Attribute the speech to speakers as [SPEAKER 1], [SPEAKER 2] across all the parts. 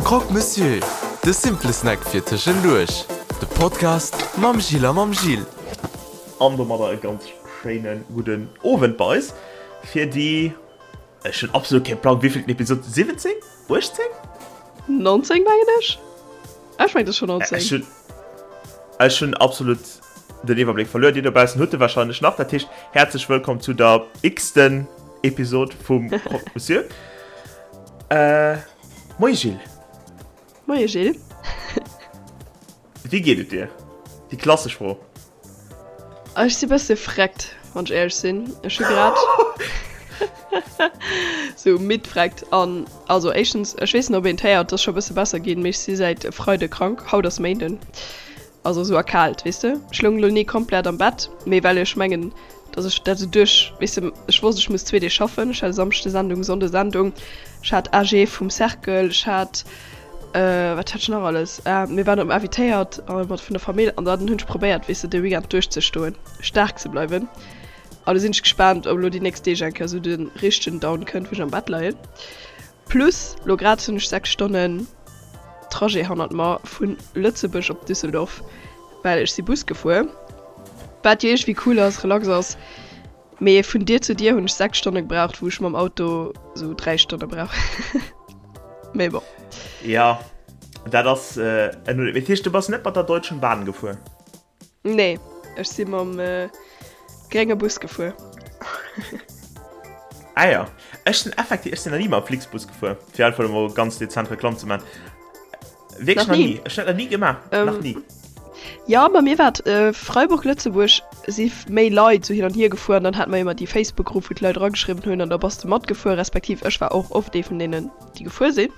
[SPEAKER 1] Croque Monsieur, de simple Snack fir tëschenduerch. De Podcast mam Gilles a mam Gilles.
[SPEAKER 2] An domadder e ganz schéine gudden Owend bei eis fir déi, ech hunn absolut kee Plang, wéivillten Episod, 17? 18?
[SPEAKER 3] 19 mengen ech. Ech mengen et ass scho 19.
[SPEAKER 2] Ech hunn, ech hunn absolut den Iwwerbléck verluer. Dir dobaussen hutt e warscheinlech nach. Dat heescht, häerzlech wëllkomm zu der x-ten Episod vum Croque Monsieur. Äh, moie Gilles.
[SPEAKER 3] Moie Gilles.
[SPEAKER 2] Wéi geet et dir? Déi klassesch Fro.
[SPEAKER 3] Ech si bësse freckt, wann ech éierlech sinn. Ech hu grad sou midd freckt an also éischtens, ech weess net ob een et héiert, et ass scho bësse besser ginn, mee ech si säit e Freide krank, haut ass Méinden, also sou erkaalt, weess de. Ech loung elo ni komplett am Bett, mee well ech mengen, dass ech dat sou duerch, weess de, ech wosst ech muss zwee Deeg schaffen, ech hat e Samschde Sendung, Sonnde Sendung, ech hat AG vum Cercle, ech hat Wat hat ech nach alles? Mir waren op invitéiert mat vun der Famill an dann hunn ech probéiert, weess de, de Weekend duerchzestoen, staark ze bleiwen. An do sinn ech gespaant, ob elo déi nächst Deeg eng Kéier esou de richtegen Down kënnt, wou ech am Bett leien. Plus lo grad hunn ech 6 Stonnen Trajet hannert mer vu Lëtzebuerg op Düsseldorf, well ech si Bus gefuer, wat jo iergendwéi cool ass, relax ass. Mee vun Dier zu Dier hunn ech 6 Stonne gebraucht, wou ech mam Auto sou 3 Stonne brauch. Mee bon.
[SPEAKER 2] Ja, dat ass en Uléck. Dat heescht, du bass net mat der Deutschen Bahn gefuer?
[SPEAKER 3] Nee, ech si mam grénge Bus gefuer.
[SPEAKER 2] Ah ja, ech sinn effektiv, ech sinn nach ni mam Flixbus gefuer, fir einfach emol ganz dezent Reklamm ze man. Wierklech nach ni. Ech hunn dat nach ni gemaach.
[SPEAKER 3] Ähm,
[SPEAKER 2] nach ni.
[SPEAKER 3] Ja, bei mir war et äh, Freiburg, Lëtzebuerg si méi Leit sou hin an hier gefuer an dann hat mer ëmmer déi Facebook-Grupp, wou d'Leit erageschriwwen hunn an da bass de matgefuer, respektiv ech war och oft ee vun deenen, déi gefuer sinn.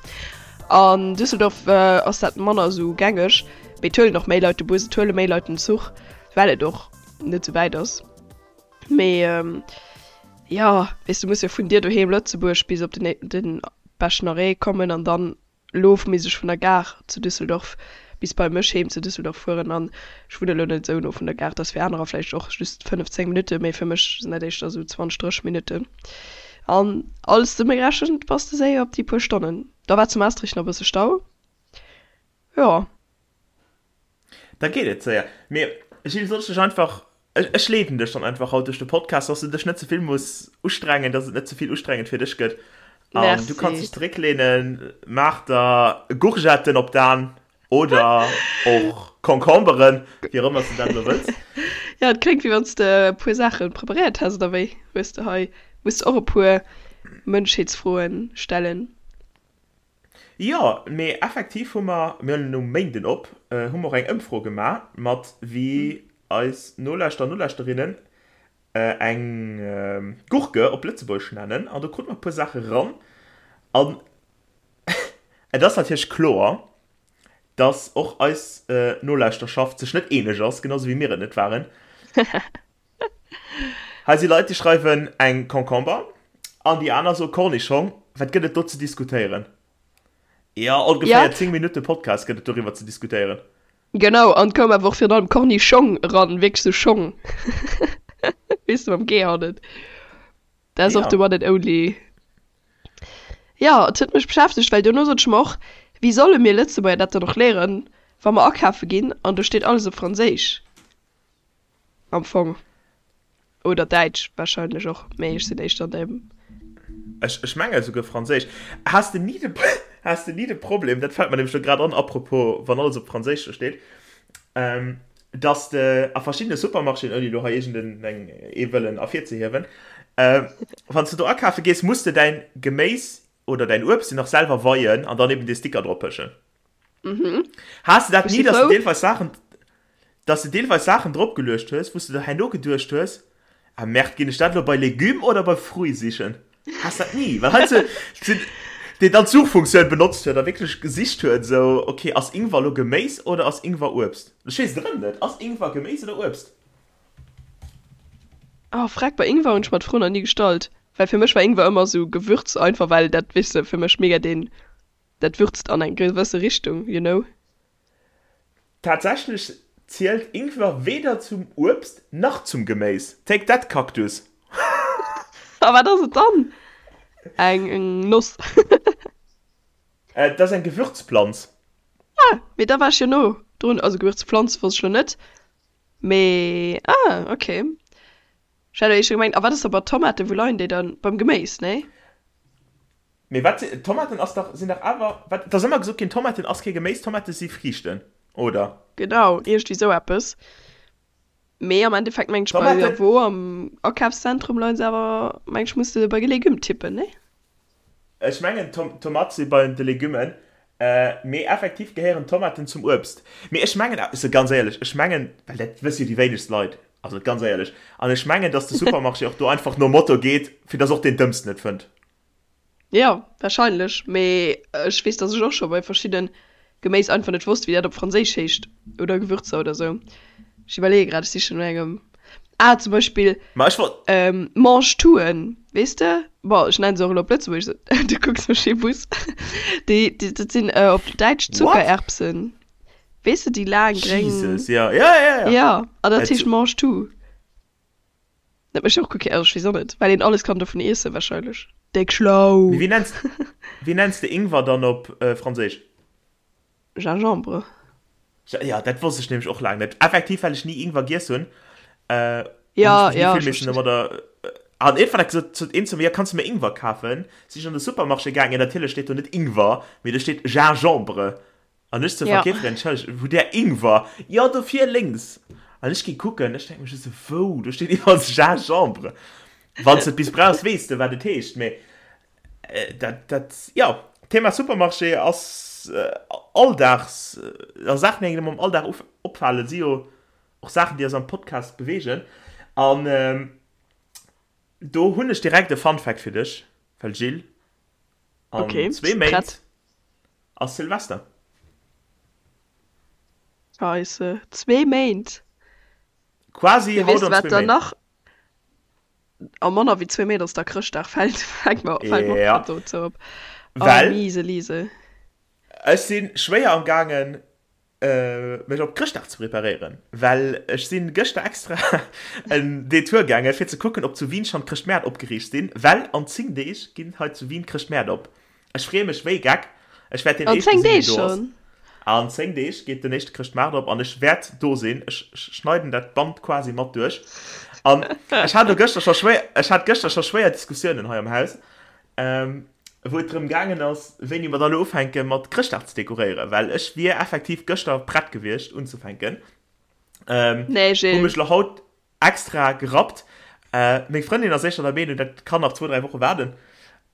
[SPEAKER 3] An Düsseldorf äh, ass dat manner sou gängeg, mee et huelen och méi Leit de Bus, et huele méi Leit den Zuch, well et och net sou wäit ass. Mee ähm, ja, weess du muss jo vun dir doheem Lëtzebuerg bis op den, den beschten Arrêt kommen an dann Elo misst ech vun der Gare zu Düsseldorf bis bei mech heem zu Düsseldorf fueren an ech wunnen elo net esou no vun der Gare. Dat ass fir anerer vläicht och just 5, 10 Minutten, mee fir mech sinn dat éischter esou 20, 30 Minutten. An alles zesummegerechent bass de séier op déi puer Stonnen. Da war zu Maastricht nach e bësse Stau, jo.
[SPEAKER 2] Da geet et séier. Mee Gilles, soll ech dech einfach, ech leeden dech dann einfach haut duerch de Podcast, dass du dech net ze vill muss ustrengen, dass et net ze vill ustrengend fir dech gëtt. An du kanns dech zerécklehnen, maach der Gourgetten op d'An oder och Concomberen, wéi och ëmmer s du dat elo wëlls.
[SPEAKER 3] Jo, et kléngt wéi wann s de e puer Saache preparéiert häss, oder wéi? Hues de hei, muss de och e puer Mënschheetsfroen stellen?
[SPEAKER 2] Jo, mee effektiv hu mer, mir huelen um Méinden op, hu mer och eng Ëmfro gemaach mat wéi eis Nolauschterer an Nolauschterinnen eng Gurke op Lëtzebuergesch nennen an do krute mer e puer Saache ran an et ass natierlech kloer, dass och eis Nolauschterschaft sech net eeneg ass, genau sou wéi mir et net waren. Hei si Leit, déi schreiwen eng Concomber an déi aner soe Cornischong. Wat gëtt et do ze diskutéieren? Jo, ongeféier 10 Minutte Podcast gëtt et doriwwer ze diskutéieren.
[SPEAKER 3] Genau, an et koum awer och virun allem Cornischong eran, wierklech sou Schong, weess de, mam G hannen. Dat ass och de one and only. Jo, et huet mech beschäftegt, well duerno sot ech mer och, wéi solle mir Lëtzebuerger dat dann och léieren, wa mer akafe ginn an do steet alles op Franséisch? Am Fong. Oder Däitsch wahrscheinlech och, mee ech sinn éischter an deem.
[SPEAKER 2] Ech, ech menge souguer Franséisch. Has de ni de, has de ni de Problem, dat fält mer nämlech lo grad an, apropos wann alles op Franséisch do steet, ähm, dass de a verschiddene Supermarchéen, ouni lo hei iergend eng, ee wëllen ervirzehiewen, ähm, wann s de do akafe gees, muss de däin Geméis oder däin Uebst jo nach selwer weien an dann eben dee Sticker drop pëschen.
[SPEAKER 3] Mhm.
[SPEAKER 2] Has de dat
[SPEAKER 3] Ech
[SPEAKER 2] ni,
[SPEAKER 3] si
[SPEAKER 2] dass de
[SPEAKER 3] frou.
[SPEAKER 2] deelweis Saachen, dass de deelweis Saachen dropgeluecht hues, wou s de der herno geduecht hues, Ah Merde, ginn ech dat elo bei Légumes oder bei Fruits sichen? Has dat ni? Well heiansdo sinn, deen dann d'Suchfunktioun benotzt huet a wierklech gesicht huet, esou, okay, ass Ingwer elo Geméis oder ass Ingwer Uebst? Ech weess et erëm net. Ass Ingwer Geméis oder Uebst?
[SPEAKER 3] Oh freck, bei Ingwer hunn ech mer d'Fro nach ni gestallt, well fir mech war Ingwer ëmmer esou Gewürz einfach, well dat, weess de, fir mech mega deen, dat würzt an eng gewësse Richtung, you know.
[SPEAKER 2] Tatsächlech zielt Ingwer weder zum Uebst nach zum Geméis. Take that, Cactus!
[SPEAKER 3] A wat ass et dann? Eng Noss?
[SPEAKER 2] Dat ass eng Gewürzplanz.
[SPEAKER 3] Ah, mee da war ech jo no drun. Also Gewürzpflanz wosst ech lo net, mee ah, okay. Ech hat éischter gemengt, a wat ass da bei Tomaten, wou leien déi dann? Beim Geméis, nee?
[SPEAKER 2] Mee wat si, Tomaten ass dach, sinn dach awer, wat, et ass ëmmer gesot ginn, Tomaten ass kee Geméis, Tomate si Friichten, oder?
[SPEAKER 3] Genau, iergendwéi sou eppes. Mee am Endeffekt mengen ech bei
[SPEAKER 2] Tomaten.
[SPEAKER 3] wou am Akafszentrum leien se awer, mengen ech, muss de bei Légumes tippen, nee?
[SPEAKER 2] Ech mengen Tomate si bei de Legummen, mee effektiv gehéieren Tomaten zum Uebst. Mee ech mengen, also ganz éierlech, ech mengen, well dat wësse jo déi wéinegst Leit, also ganz éierlech, an ech mengen, datt de Supermarché och do einfach nom Motto geet, fir datt och deen Dëmmsten et fënnt.
[SPEAKER 3] Jo, wahrscheinlech, mee ech weess, datt ech och scho bei verschidde Geméis einfach net wosst, wéi dat op Franséisch heescht oder Gewürzer oder sou. Ech iwwerleeë grad, ech sichen no engem. Ah, zum Beispill
[SPEAKER 2] Ma ech wollt.
[SPEAKER 3] Mangetouen, weess de? Bon, ech nennen se och elo op Lëtzebuergesch, du kucks mech wéi Bus. Déi, dat sinn op Däitsch
[SPEAKER 2] What?
[SPEAKER 3] Zuckererbsen. Weess de, déi laang gréng.
[SPEAKER 2] Jesus, ja, ja, ja, ja.
[SPEAKER 3] Ja, an dat heescht Mangetout. Dat mécht och guer kee, also ech weess och net, well een alles kann dovun iessen wahrscheinlech. Déck schlau!
[SPEAKER 2] Mee wéi nenns, wéi nenns de Ingwer dann op Franséisch?
[SPEAKER 3] Gingembre.
[SPEAKER 2] Jo, dat wosst ech nämlech och laang net. Effektiv, well ech ni Ingwer giess hunn, hunn
[SPEAKER 3] Ja,
[SPEAKER 2] ech mech ni
[SPEAKER 3] ja,
[SPEAKER 2] vill
[SPEAKER 3] ech
[SPEAKER 2] missen
[SPEAKER 3] verstinn.
[SPEAKER 2] domadder. An iergendwann hat gesot, sot een zu mir, jo, kanns de mir Ingwer kafen? Sinn ech an de Supermarché gaangen, natierlech steet do net Ingwer, mee do steet Gingembre. An ech zur
[SPEAKER 3] Ja.
[SPEAKER 2] Verkeeferin, Entschëllegt, wou där Ingwer? Jo, do vir lénks. An ech gi kucken, ech denke mech just esou, wou? Do steet iwwerall Gingembre. Wann s de et bis brauchs, weess de, wat et heescht. Mee dat, dat, jo, Thema Supermarché ass Alldags, a Saachen, déi engem am Alldag opfalen, si jo och Saachen, déi eis am Podcast beweegen. An do hunn ech direkt e Fun Fact fir dech, well Jill, an
[SPEAKER 3] Okay,
[SPEAKER 2] zwee
[SPEAKER 3] prett.
[SPEAKER 2] Méint Ass Silvester.
[SPEAKER 3] Scheisse, zwee Méint!
[SPEAKER 2] Quasi
[SPEAKER 3] Mee
[SPEAKER 2] haut
[SPEAKER 3] weess de
[SPEAKER 2] an
[SPEAKER 3] wat
[SPEAKER 2] zwee
[SPEAKER 3] dann
[SPEAKER 2] Méint.
[SPEAKER 3] nach? A manner wéi zwee Méint ass da Chrëschtdag, fält fält mer fält mer och
[SPEAKER 2] Ja.
[SPEAKER 3] grad dozou op. Oh
[SPEAKER 2] Well
[SPEAKER 3] miese Liese.
[SPEAKER 2] ech si schwéier am gaangen mech op Chrëschtdag ze preparéieren, well ech sinn gëschter extra en Detour gaangen fir ze kucken ob zu Wien schonn d'Chrëschtmäert opgeriicht sinn, well an 10 Deeg ginn hei zu Wien d'Chrëschtmäert op. Ech freeë mech wéi Geck, ech wäert deen
[SPEAKER 3] An
[SPEAKER 2] éischte
[SPEAKER 3] 10
[SPEAKER 2] sinn deen
[SPEAKER 3] Deeg
[SPEAKER 2] do ass.
[SPEAKER 3] schonn?
[SPEAKER 2] An 10 Deeg geet den éischte Chrëschtmaart op an ech wäert do sinn. Ech schneiden dat Band quasi mat duerch. An ech hat elo gëschter scho schwéier, ech hat gëschter scho schwéier Diskussiounen hei am Haus. Wou et drëm gaangen ass, wéini mer dann elo ufänke mat Chrëschtdag ze dekoréieren, well ech wier effektiv gëschter prett gewiescht unzefänken.
[SPEAKER 3] Nee,
[SPEAKER 2] Hu
[SPEAKER 3] Gilles.
[SPEAKER 2] mech elo haut extra gerappt. Meng Frëndin ass éischter der Meenung, dat kann nach zwou, dräi Woche waarden.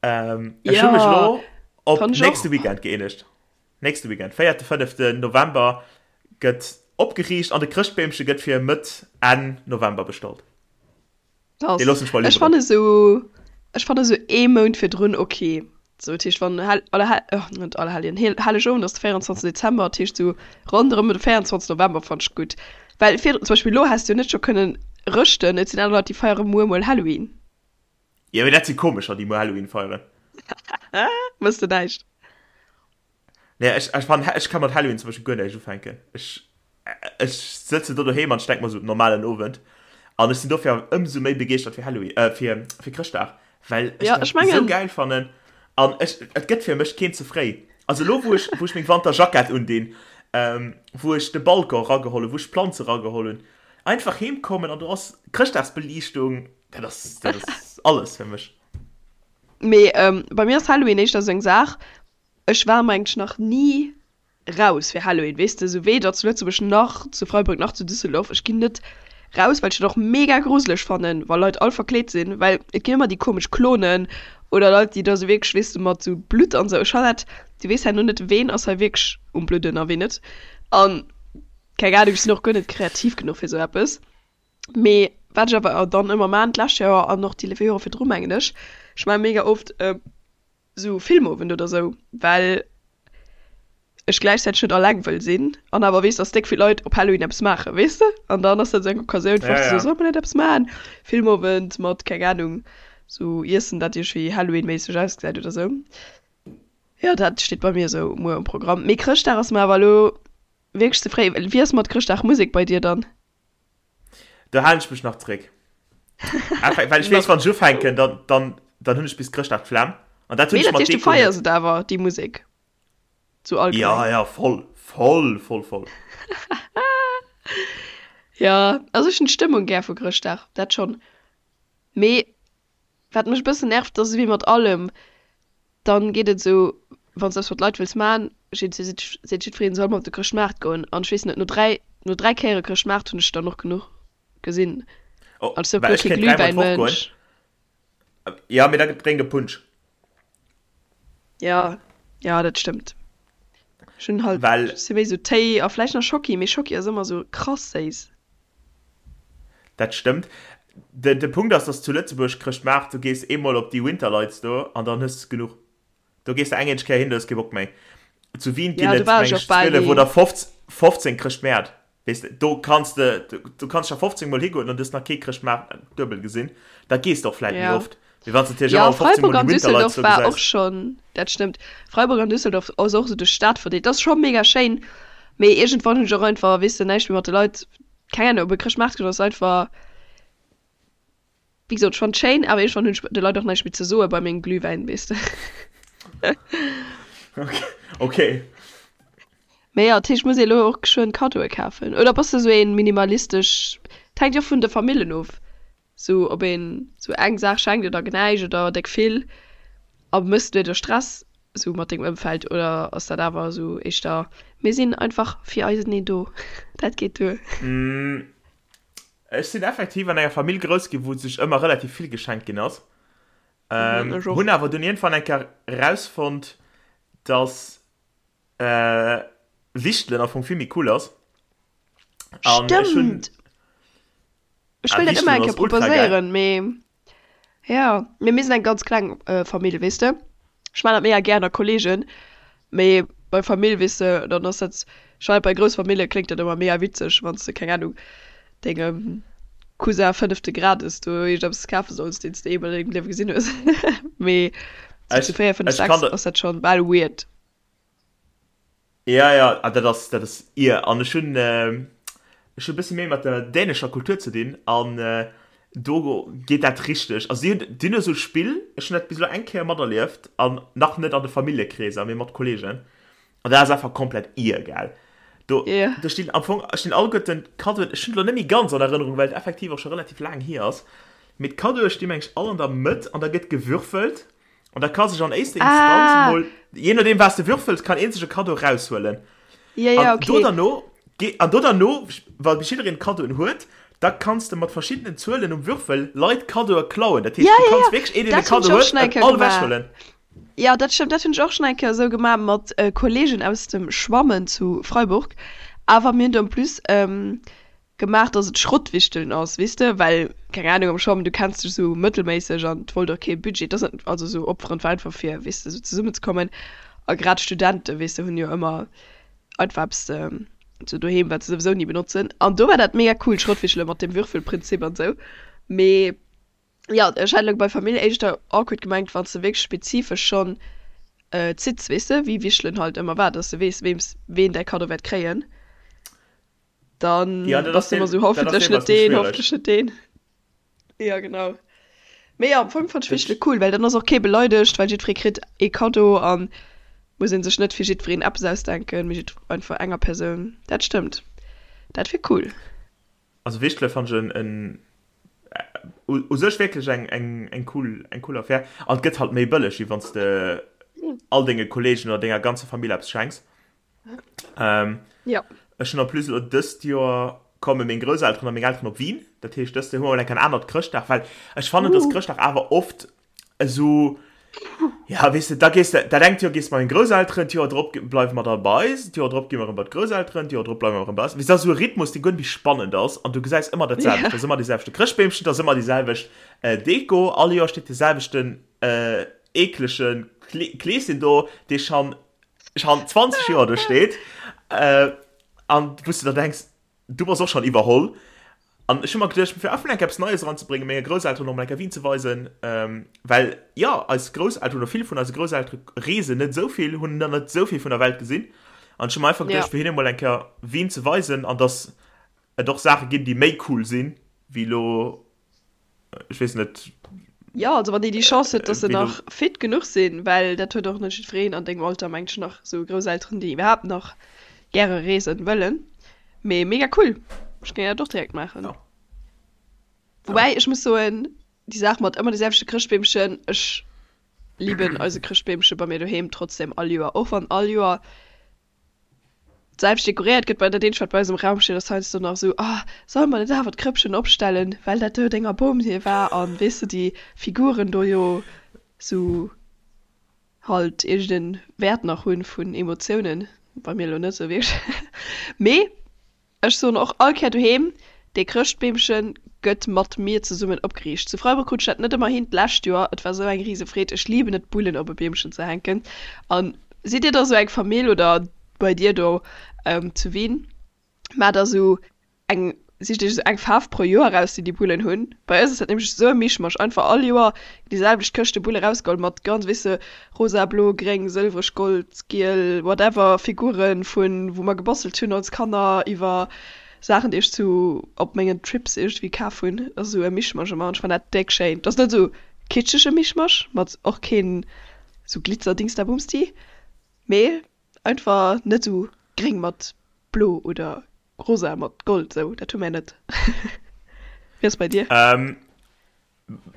[SPEAKER 2] Ech hu mech
[SPEAKER 3] Ja,
[SPEAKER 2] elo op
[SPEAKER 3] kann ech
[SPEAKER 2] nächste
[SPEAKER 3] och.
[SPEAKER 2] Weekend gëeenegt. Nächste Weekend, véierte, fënneften November gëtt opgeriicht an de Chrëschtbeemche gëtt fir Mëtt, Enn November bestallt. Dee loossen ech mer
[SPEAKER 3] Ech
[SPEAKER 2] liwweren.
[SPEAKER 3] fanne sou, ech fanne sou ee Mount virdrun ok. Sou, dat heescht wann Hell, Allerhell, oh net Allerhelljen, Hel, Hellegowend ass de 24 Dezember, dat heescht sou ronderëm de 24 November fannt ech gutt. Well virdrun, zum Beispill elo häss de jo net scho kënnen rëschten, et sinn aner Leit déi feiere muer mol Halloween.
[SPEAKER 2] Jo mee dat si komescher déi muer Halloween feieren.
[SPEAKER 3] Wëss de näischt?
[SPEAKER 2] Nee, ech, ech fan, ech ka mat Halloween zum Beispill guer näischt ufänken. Ech, ech sëtzen do doheem an ech denk mer sou, normalen Owend. An ech sinn dofir awer ëmsou méi begeeschtert fir Halloween, äh, fir, fir Chrëschtdag, well ech
[SPEAKER 3] Ja,
[SPEAKER 2] dat
[SPEAKER 3] ech
[SPEAKER 2] esou
[SPEAKER 3] mengen.
[SPEAKER 2] gäil fannen. An ech, et gëtt fir mech keen ze fréi. Also elo, wou ech, wou ech meng Wanterjackett undinn, ähm, wou ech de Balcon erageholl hunn, wou ech d'Planze erageholl hunn, einfach heem kommen an do ass Chrëschtdagsbeliichtung, dat ass, dat ass alles fir mech.
[SPEAKER 3] Mee, ähm, bei mir ass Halloween éischter sou eng Saach, Ech war mengt nach ni raus fir Halloween, weess de, sou weder zu Lëtzebuerg nach zu Freiburg nach zu Düsseldorf. Ech ginn net raus, well ech dat och mega gruseleg fannen, wa Leit all verkleet sinn, well et ginn ëmmer déi komesch Klonen oder Leit, déi da sou wierklech, weess de, mat sou Blutt an sou. Ech fannen dat, du weess herno net, ween ass hei wierklech um Bludden a ween net. An keng Ahnung, ech sinn och guer net kreativ genuch fir sou eppes. Mee wat ech awer dann ëmmer maan, d'lescht Joer an och déi Jore virdru mengen ech, ech maan mega oft, sou Filmowend oder sou, well ech gläichzäiteg net alleng wëll sinn an awer weess, dass déck vill Leit op Halloween eppes maachen, weess de? An dann ass dat sou eng Occasioun fir
[SPEAKER 2] Ja,
[SPEAKER 3] och ze soen,
[SPEAKER 2] ja.
[SPEAKER 3] solle mer net eppes maachen? Filmowend mat, keng Ahnung, sou Iessen, dat iergendwéi Halloween-méisseg ausgesäit oder sou. Jo, dat steet bei mir sou muer um Programm. Mee Chrëschtdag ass mer awer elo wierklech ze fréi. Wéi ass mat Chrëschtdagmusek bei dir dann?
[SPEAKER 2] Do halen ech mech nach zréck. Einfach, well ech weess, wann ech ufänken, dann, dann, dann hunn ech bis Chrëschtdag d'Flemm. An dat hunn
[SPEAKER 3] Mee
[SPEAKER 2] ech
[SPEAKER 3] dat
[SPEAKER 2] mat
[SPEAKER 3] heescht, du
[SPEAKER 2] Deko net.
[SPEAKER 3] feiers et awer, déi Musek? Sou allgemeng.
[SPEAKER 2] Ja, ja, voll, voll, voll, voll.
[SPEAKER 3] Ja, also ech hunn d'Stëmmung gär vu Chrëschtdag, dat schonn. Mee wat mech e bëssen nervt, ass ewéi mat allem, dann geet et esou, wann s de eppes mat Leit wëlls man, seet seet jiddwereen, soll mer op de Chrëschtmaart goen. An ech weess net, no 3, no 3 Kéiere Chrëschtmaart hunn ech dann och genuch gesinn.
[SPEAKER 2] Oh,
[SPEAKER 3] An ech sinn och
[SPEAKER 2] well
[SPEAKER 3] guer
[SPEAKER 2] ech
[SPEAKER 3] kee
[SPEAKER 2] kéint dräimol d'Woch goen.
[SPEAKER 3] Glühwäinmënsch.
[SPEAKER 2] Ja, mee da drénk e Punsch.
[SPEAKER 3] Ja, ja, dat stëmmt. Ech hunn halt,
[SPEAKER 2] Well.
[SPEAKER 3] ech si méi sou Téi a vläicht nach Schocki, mee Schocki ass ëmmer sou krass séiss.
[SPEAKER 2] Dat stëmmt. De, de Punkt ass, dass zu Lëtzebuerg Chrëschtmaart, du gees eemol op déi Winterlights do an dann hues de genuch. Do gees de eng eenzeg Kéier hin, du hues kee Bock méi. Zu Wien ginn
[SPEAKER 3] Ja, do
[SPEAKER 2] et,
[SPEAKER 3] war ech
[SPEAKER 2] meng
[SPEAKER 3] och
[SPEAKER 2] ech,
[SPEAKER 3] bal
[SPEAKER 2] 12
[SPEAKER 3] ni.
[SPEAKER 2] oder 15 Chrëschtmäert. Weess de, do kanns de, du kanns scho 15 mol higoen an du hues nach kee Chrëschtmaart duebel gesinn. Da gees de och vläit méi
[SPEAKER 3] Ja.
[SPEAKER 2] oft, wéi wann s de natierlech
[SPEAKER 3] Ja,
[SPEAKER 2] ëmmer 15
[SPEAKER 3] Freiburg
[SPEAKER 2] mol déi
[SPEAKER 3] an
[SPEAKER 2] Winterlights
[SPEAKER 3] Düsseldorf
[SPEAKER 2] do
[SPEAKER 3] war och
[SPEAKER 2] gesäis.
[SPEAKER 3] schonn, dat stëmmt. Freiburg an Düsseldorf ass och esou duerch d'Stad verdeelt. Dat ass scho mega schéin, mee iergendwann hunn ech och einfach, weess de, näischt méi mat de Leit, keng Ahnung, op e Chrëschtmaart goen ass einfach, Wéi gesot, ech fannen et schéin, awer iergendwann hunn ech de Leit och näischt méi ze soe bei mengem Glühwäin, weess de.
[SPEAKER 2] Okay.
[SPEAKER 3] Mee jo, dat heescht, muss ee elo och geschwënn Kaddoe kafen? Oder bass de sou een minimalistesch, et hänkt jo och vun de Famillen of, sou ob een sou eng Saach schenkt oder näischt oder déck vill. A méchs du dir do Stress sou mat dengem Ëmfeld oder ass dat awer sou éischter, mir sinn einfach fir eiseneen do, dat geet duer?
[SPEAKER 2] Ech sinn effektiv an enger Famill grouss ginn, wou sech ëmmer relativ vill geschenkt ginn ass. Ähm,
[SPEAKER 3] Mhm, ech och.
[SPEAKER 2] hunn awer dunn iergendwann eng Kéier rausfonnt, dass äh, Wichtelen am Fong vill méi cool ass. An ech hunn.
[SPEAKER 3] Stëmmt! Ech
[SPEAKER 2] Ah,
[SPEAKER 3] wëll dat ëmmer
[SPEAKER 2] Wichtelen
[SPEAKER 3] eng
[SPEAKER 2] ass
[SPEAKER 3] Kéier
[SPEAKER 2] ultra geil.
[SPEAKER 3] proposéieren, mee Ja, mee mir sinn eng ganz kleng Famill, weess de. Ech maan dat mega gär ënner Kollegen, mee bei Famill, weess de, dann ass dat, ech fannen bei grouss Famillje kléngt dat ëmmer mega witzeg, wann s de, keng Ahnung, dengem Cousin fënnefte Grades do iergendeppes kafe solls, deen s de eemol an dengem Liewe gesinn hues. Mee sou zu
[SPEAKER 2] Ech,
[SPEAKER 3] 4, 5,
[SPEAKER 2] ech kann
[SPEAKER 3] 6
[SPEAKER 2] der.
[SPEAKER 3] ass dat schonn bal weird.
[SPEAKER 2] Ja, ja, ah, dat ass, dat ass ir. An ech hunn, ech hunn e bësse méi mat der dänescher Kultur ze dinn an do geet dat richteg. Also si hunn, déi hunn esou e Spill, ech hunn dat bis elo eng Kéier materlieft an nach net an de Familljekreeser, mee mat Kolleegen. An dat ass einfach komplett ir, gell. Do,
[SPEAKER 3] Ja.
[SPEAKER 2] do stinn am Fong, stinn alleguerten d'Kaddoen, ech hunn et elo net méi ganz an Erënnerung, well et effektiv och scho relativ laang hier ass, mee d'Kaddoe sti meng ech all an der Mëtt an da gëtt gewürfelt An da ka sech an éischter Instanz
[SPEAKER 3] Ah.
[SPEAKER 2] mol, je nodeem wat s de würfels, kann een sech e Kaddo raushuelen.
[SPEAKER 3] Ja, ja,
[SPEAKER 2] An do
[SPEAKER 3] okay.
[SPEAKER 2] derno, ge- an do derno, wa bis jiddereen Kaddoen huet, da kanns de mat verschiddenen Zuelen um Würfel Leit Kaddoe klauen. Dat heescht,
[SPEAKER 3] Ja,
[SPEAKER 2] du
[SPEAKER 3] ja,
[SPEAKER 2] kanns
[SPEAKER 3] ja.
[SPEAKER 2] wierklech een, deen e
[SPEAKER 3] Dat hunn
[SPEAKER 2] Kaddo
[SPEAKER 3] ech och
[SPEAKER 2] huet,
[SPEAKER 3] schon eng
[SPEAKER 2] en
[SPEAKER 3] Kéier
[SPEAKER 2] all
[SPEAKER 3] gemaach.
[SPEAKER 2] ewechhuelen.
[SPEAKER 3] Ja, dat stëmmt, dat hunn ech och schon eng Kéier esou gemaach mat Kollegen aus dem Schwammen zu Freiburg. Awer mir hunn do en plus gemaach, dass et Schrottwichteln ass, weess de, well, keng Ahnung, am Schwammen, du kenns dech esou mëttelméisseg an et wollt och kee Budget, et ass net, also esou opferen, et war einfach fir, weess de, esou zesummenzekommen a grad Studenten, weess de, hunn jo ëmmer einfach eppes esou doheem, wat se souwisou ni benotzen an do war dat mega cool, Schrottwichtele mat dem Würfelprinzip an esou, mee jo, ech hat elo bei Famill éischter awkward gemengt, wann s de wierklech spezifesch schonn zitts, weess de, wéi Wichtelen halt ëmmer war, dass de weess, weems ween däi Kaddo wäert kréien. Dann
[SPEAKER 2] Ja, dat
[SPEAKER 3] bass
[SPEAKER 2] ass
[SPEAKER 3] du ëmmer
[SPEAKER 2] deel,
[SPEAKER 3] sou,
[SPEAKER 2] dat ass
[SPEAKER 3] hoffentlech
[SPEAKER 2] deelweis
[SPEAKER 3] net
[SPEAKER 2] méi
[SPEAKER 3] deen,
[SPEAKER 2] schwiereg.
[SPEAKER 3] hoffentlech net deen. Ja, genau. Mee jo, am Fong fannt ech
[SPEAKER 2] Dat,
[SPEAKER 3] Wichtele cool, well dann ass och kee beleidegt, well jiddweree kritt ee Kaddo an muss ee sech net fir jiddwereen eppes ausdenken, mee jidd einfach enger Persoun. Dat stëmmt. Dat wier cool.
[SPEAKER 2] also Wichtele fannt ech en, en u, u sech wierklech eng, eng, eng cool, eng cool Affär. An et gëtt halt méi bëlleg, wéi wann s de all denge Kolleegen oder denger ganzer Famill eppes schenks. Ähm,
[SPEAKER 3] Ja.
[SPEAKER 2] Ech hunn en plus elo dëst Joer komme meng Grousselteren a meng Elteren op Wien. Dat heescht, dëst Joer hu mer eng anert Chrëschtdag, well ech fannen, dass
[SPEAKER 3] Uh.
[SPEAKER 2] Chrëschtdag awer oft esou, ja, weess de, da gees de, dat engt Joer gees de mat menge Grousselteren, d'Joer drop bleiwe mer da bei eis, d'Joer drop gi mer erëm bei d'Grousselteren, d'Joer drop bleiwe mer erëm bei eis. Weess de, dat ass esou e Rhythmus, dee guer net méi spannend ass an du gesäis ëmmer dat selwecht.
[SPEAKER 3] Ja.
[SPEAKER 2] Et ass ëmmer dee selwechte Chrëschtbeemchen, et ass ëmmer déi selwecht Deko, all Joer steet dee selwechten eeklege Kleeschen do, dee schonn schon 20 Joer do steet äh, an wou du da denkst, du bass och schon iwwerholl. An ech hu mer geduecht, fir einfach enk eppes Neies eranzebréngen, menge Grousselteren och mol enk Wien ze weisen, ähm, well jo, eis Grousselteren oder vill vun eise Grousseltere reesen net esou vill, hunn dann net esou vill vun der Welt gesinn. An ech hu mer einfach
[SPEAKER 3] Ja.
[SPEAKER 2] geduecht, fir hinne mol eng Kéier Wien ze weisen an dass et och Saache ginn, déi méi cool sinn, wéi elo, ech weess net.
[SPEAKER 3] Jo, also wann déi déi Chance huet, dass se nach fit genuch sinn, well dat huet och net jiddwereen an dengem Alter, mengt ech, nach esou Grousselteren, déi iwwerhaapt nach gäre reesen wëllen. Mee mega cool, ech géing dat och direkt maachen.
[SPEAKER 2] Jo.
[SPEAKER 3] Woubäi ech muss soen, déi Saach mat ëmmer de selwechte Chrëschtbeemchen, ech liben eise Chrëschtbeemche bei mir doheem trotzdem all Joer, och wann all Joer d'selwecht dekoréiert gëtt. Bei dat eenzegt wat bei eis am Raum steet ass heiansdo nach esou, ah solle mer net awer d'Krëppchen opstellen, well dat do denger Bom hir war an weess de déi Figuren do jo sou halt iergend en Wäert nach hunn vun Emotiounen, bei mir elo net sou wierklech, mee Ech soen och all Kéier doheem, dee Chrëschtbeemche gëtt mat mir zesummen opgeriicht. Zu Freiburg krut ech dat net ëmmer hin, d'lescht Joer. Et war sou eng rise Freed. Ech liben et Bullen op e Beemchen ze hänken. An sidd dir da sou eng Famill oder bei dir do zu Wien, maacht der sou eng, sicht iech sou eng Faarf pro Joer eraus déi déi Bullen hunn? Bei eis ass dat nämlech sou e Mischmasch, einfach all Joer déi selwecht Këschte Bulle rausgeholl mat ganz, weess de, Rosa, blo, gréng, sëlwereg, gold, giel, whatever Figuren vun wou mer gebastelt hunn als Kanner iwwer Saachen déi ech zu op mengen Trips iergendwéi kaf hunn. Dat ass esou e Mischmasch ëmmer an ech fannen dat déck schéin. Dat ass net esou kitschege Mischmasch mat och keen esou Glitzer-Dingsdabumsti, mee einfach net esou gréng mat blo oder rosa mat gold esou, dat hu mär net. Wéi ass bei dir?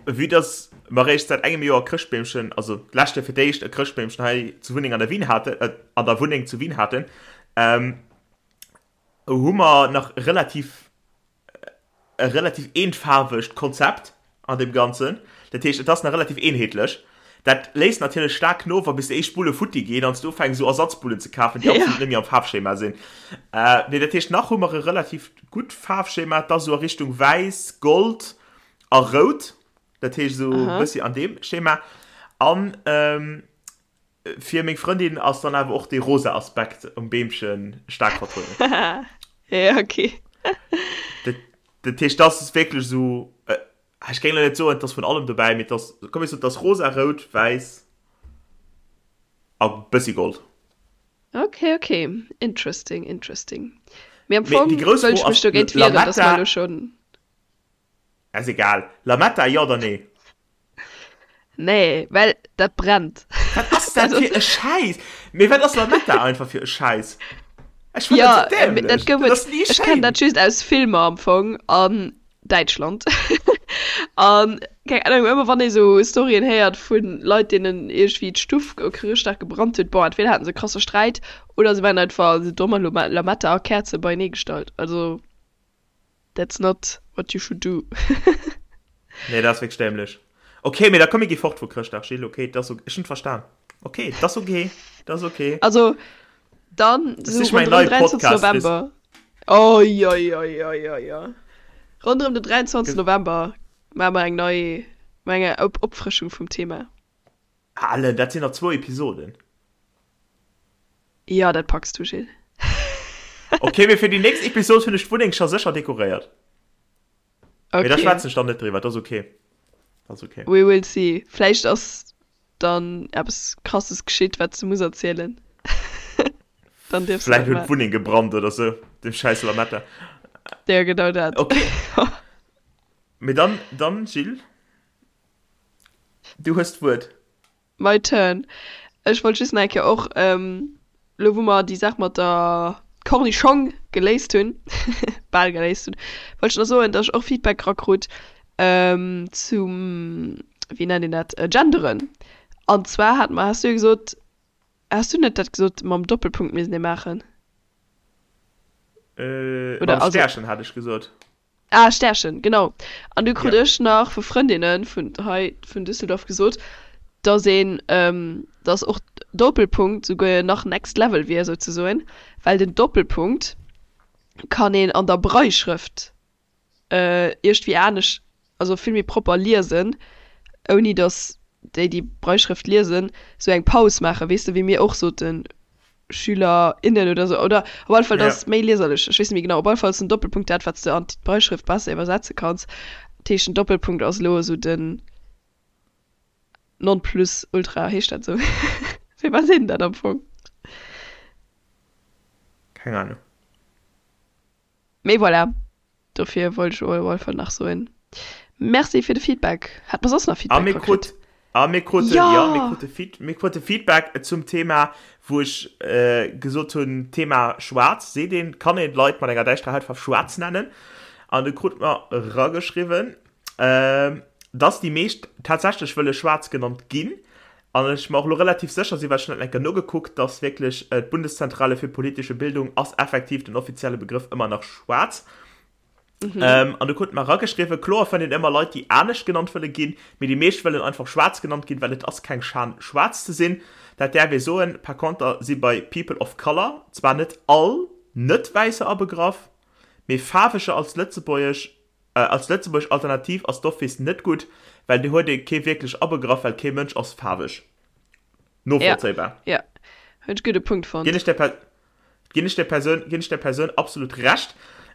[SPEAKER 2] Vue dass mer eréischt säit engem Joer e Chrëschtbeemchen, also d'lescht Joer fir d'éischt e Chrëschtbeemchen hei zu Wunneng an der Wien haten, an der Wunneng zu Wien haten, hu mer nach relativ e relativ eenfaarwegt Konzept an deem Ganzen. Dat heescht, et ass nach relativ eenheetlech. Dat léisst natierlech staark no, wa bis déi éischt Bulle futti ginn an s du ufänks esou Ersatzbullen ze kafen, déi absolut net méi am Faarfschema sinn. Mee dat heescht, nach hu mer e relativ gutt Faarfschema, et ass esou a Richtung wäiss, gold a rout, dat heescht esou e bëssi an deem Schema. An fir meng Frëndin ass dann awer och dee rosa Aspekt um Beemche staark vertrueden.
[SPEAKER 3] Ja, okay.
[SPEAKER 2] Dat, dat heescht, dat ass wierklech esou, ech géing elo net soen, et ass vun allem dobäi, mee et ass, komm ech soen, et ass rosa, rout, wäiss a bëssi gold.
[SPEAKER 3] Okay, okay. Interesting, interesting. Mee am Fong wëll ech mech dogéint wieren, dass mer elo schonn.
[SPEAKER 2] Ass egal. Lametta, jo oder nee?
[SPEAKER 3] Nee, well dat brennt.
[SPEAKER 2] Wat ass dat fir e Schäiss? Mee wat ass Lametta einfach fir e Schäiss? Ech fannen dat sou dämlech.
[SPEAKER 3] Dat gouf et, ech kennen dat just aus Filmer am Fong an Däitschland. An keng Ahnung, ëmmer wann ee sou Storyen héiert vu Leit deenen iergendwéi d'Stuff op Chrëschtdag gebrannt huet, bon entweder haten se e krasse Sträit oder se waren einfach sou domm an hu Lametta a Käerze beienee gestallt. Also. That's not what you should do.
[SPEAKER 2] Nee, dat ass wierklech dämlech. Okay, mee da komm, mir gi fort vu Chrëschtdag, Gilles. Okay, dat ass ok. Ech hunn et verstan. Okay, dat ass ok. Dat ass ok.
[SPEAKER 3] Also, dann
[SPEAKER 2] Das
[SPEAKER 3] sou
[SPEAKER 2] ist mein
[SPEAKER 3] ronderëm
[SPEAKER 2] neie
[SPEAKER 3] 23.
[SPEAKER 2] Podcast.
[SPEAKER 3] November. Oi, oi, oi, oi, oi, oi. Ronderëm den 23. November maache mer eng nei, maache eng Op Opfrëschung vum Thema.
[SPEAKER 2] Allen, dat sinn nach zwou Episoden.
[SPEAKER 3] Jo, dat packs du, Gilles.
[SPEAKER 2] Okay, mee fir déi nächst Episod hunn ech d'Wunneng scho sécher dekoréiert. Mee da
[SPEAKER 3] Okay.
[SPEAKER 2] schwätzen ech dann net driwwer, dat ass okay. Dat ass okay.
[SPEAKER 3] We will see. Vläicht ass dann eppes Krasses geschitt, wat s du muss erzielen. Dann dierfs du
[SPEAKER 2] Vläicht
[SPEAKER 3] dat
[SPEAKER 2] huet
[SPEAKER 3] maachen.
[SPEAKER 2] d'Wunneng gebrannt oder sou, dem schäiss Lametta.
[SPEAKER 3] Ja, genau dat.
[SPEAKER 2] Okay. Mee dann, dann, Gilles, du hues d'Wuert.
[SPEAKER 3] My turn. Ech wollt just nach eng Kéier och, elo wou mer déi Saach mat der Cornischong geléist hunn, bal geléist hunn, wollt ech nach soen, datt ech och Feedback erakrut zum, wéi nennt een dat, Genderen. An zwar hat mer, has du jo gesot, has du net dat gesot mam Doppelpunkt misst ee maachen?
[SPEAKER 2] Äh, mam Stärchen hat ech gesot.
[SPEAKER 3] Ah, Stärchen, genau. An du krut ech nach vu Frëndinne vun hei vun Düsseldorf gesot, dass een, dass och Doppelpunkt souguer nach next level wier souzesoen, well den Doppelpunkt kann een an der Brailleschrëft iergdwéi anescht, also vill méi propper liesen, ouni dass déi, déi Brailleschrëft liesen, sou eng Paus maachen, weess de, wéi mir och soten, Schüler, innen oder sou, oder op alle Fall, dat ass méi lieserlech, ech weess net méi genau. Op alle Fall ass den Doppelpunkt dat, wat s de an d'Brailleschrëft besser iwwersetze kanns. Dat heescht, den Doppelpunkt ass elo esou den Nonplusultra, heescht dat esou? Wéi wat seet een dat am Fong?
[SPEAKER 2] Keng Ahnung.
[SPEAKER 3] Mee voilà, dofir wollt ech op alle Fall nach soen. Merci fir de Feedback. Hat mer soss nach
[SPEAKER 2] A
[SPEAKER 3] Feedback
[SPEAKER 2] mir
[SPEAKER 3] rakritt?
[SPEAKER 2] krut, a mir kruten, ja, mir
[SPEAKER 3] Ja!
[SPEAKER 2] krute Feed, mir krute Feedback zum Thema, wou ech äh, gesot hunn, Thema schwaarz, seet een, kann een Leit mat enger däischterer Hautfaarf schwaarz nennen? An du krut mer rageschriwwen, äh, dass déi meescht tatsächlech wëlle schwaarz genannt ginn. An ech mer och elo relativ sécher sinn, well ech hunn dat eng Kéier nogekuckt, dass wierklech d'Bundeszentrale für politische Bildung ass effektiv den offizielle Begrëff ëmmer nach schwaarz. Mhm. An du krut mer erageschriwwen, kloer fënnt een ëmmer Leit, déi anescht genannt wëlle ginn, mee déi meescht wëllen einfach schwaarz genannt ginn, well et ass keng Schan schwaarz ze sinn. Dat däerf ee soen. Par conter si bei People of Color zwar net all Net-Wäisser abegraff, mee Faarweger als lëtzebuergesch Als lëtzebuergesch Alternativ ass d'office net gutt, well do huet ee kee wierklech abegraff, well kee Mënsch ass faarweg. Novollzéibar.
[SPEAKER 3] Ja, hunn ech gudde Punkt fonnt.
[SPEAKER 2] Ginn ech der Per, ginn ech der Persoun, ginn ech der Persoun absolut Recht.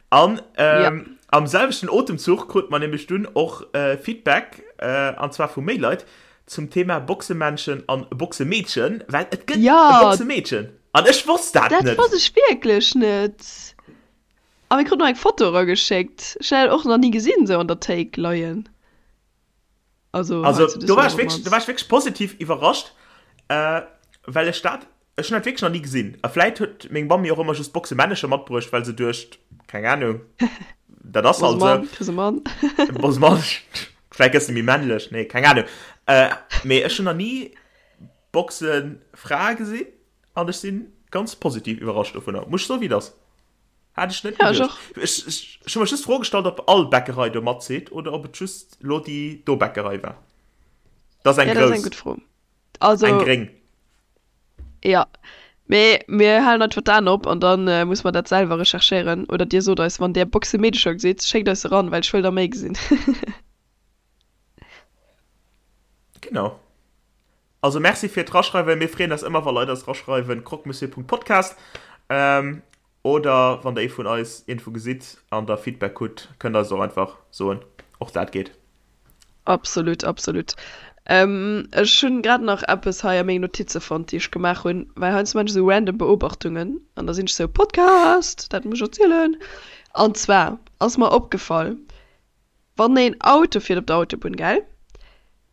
[SPEAKER 2] An ähm, am selwechten Otemzuch krut mer nämlech dunn och äh, Feedback, äh, an zwar vu méi Leit, zum Thema Boxemännchen an Boxemeedchen, well et gëtt e
[SPEAKER 3] Ja!
[SPEAKER 2] Boxemeedchen. An ech wosst dat
[SPEAKER 3] Dat
[SPEAKER 2] net.
[SPEAKER 3] wosst ech wierklech net. A mir kruten och eng Foto erageschéckt. Ech hunn dat och nach ni gesinn, esou an der Théik leien.
[SPEAKER 2] Also, also do war ech wierklech, do war ech wierklech positiv iwwerrascht, äh, well ech dat, ech hunn dat wierklech nach ni gesinn. A vläit huet meng Mamm mir och ëmmer just Boxemännecher matbruecht, well se duecht, keng Ahnung, dat ass halt esou.
[SPEAKER 3] Kriss e Mann.
[SPEAKER 2] Bass e Mann. Vläit gëss de méi männlech. Nee, keng Ahnung. Äh, mee ech hunn nach ni Boxefrae gesinn an ech si ganz positiv iwwerrascht dovunner. Muss ech soen, wéi et ass. Hat ech net
[SPEAKER 3] Ja, ech
[SPEAKER 2] geduecht.
[SPEAKER 3] och.
[SPEAKER 2] Ech, ech, ech hu mech just d'Fro gestallt, ob all Bäckerei do matzitt oder ob et just lo déi do Bäckerei war. Dat ass eng
[SPEAKER 3] Ja, dat ass eng
[SPEAKER 2] grouss,
[SPEAKER 3] gutt Fro.
[SPEAKER 2] eng
[SPEAKER 3] Also,
[SPEAKER 2] gréng.
[SPEAKER 3] ja. Mee mir halen einfach d'Aen op an dann äh, muss mer dat selwer recherchéieren. Oder dir sot eis, wann där Boxemeedecher gesitt, schéckt eis se ran, well ech wëll der méi gesinn.
[SPEAKER 2] Genau. Also Merci fir d'Raschreiwen. Mir freeën eis ëmmer, wa Leit eis raschreiwen, croquemonsieur.podcast. Ähm, oder wann der ee vun eis iergendwou gesitt an der Feedback hutt, kënnt der eis et och einfach soen. Och dat geet.
[SPEAKER 3] Absolut, absolut. Ähm, ech hunn grad nach eppes hei a menge Notize fonnt, déi ech gemaach hunn, well heiansdo maan ech esou random Beobachtungen an da sinn ech esou, Podcast, dat muss ech erzielen. An zwar ass mer opgefall, Wann een Auto fiert op der Autobunn, gell,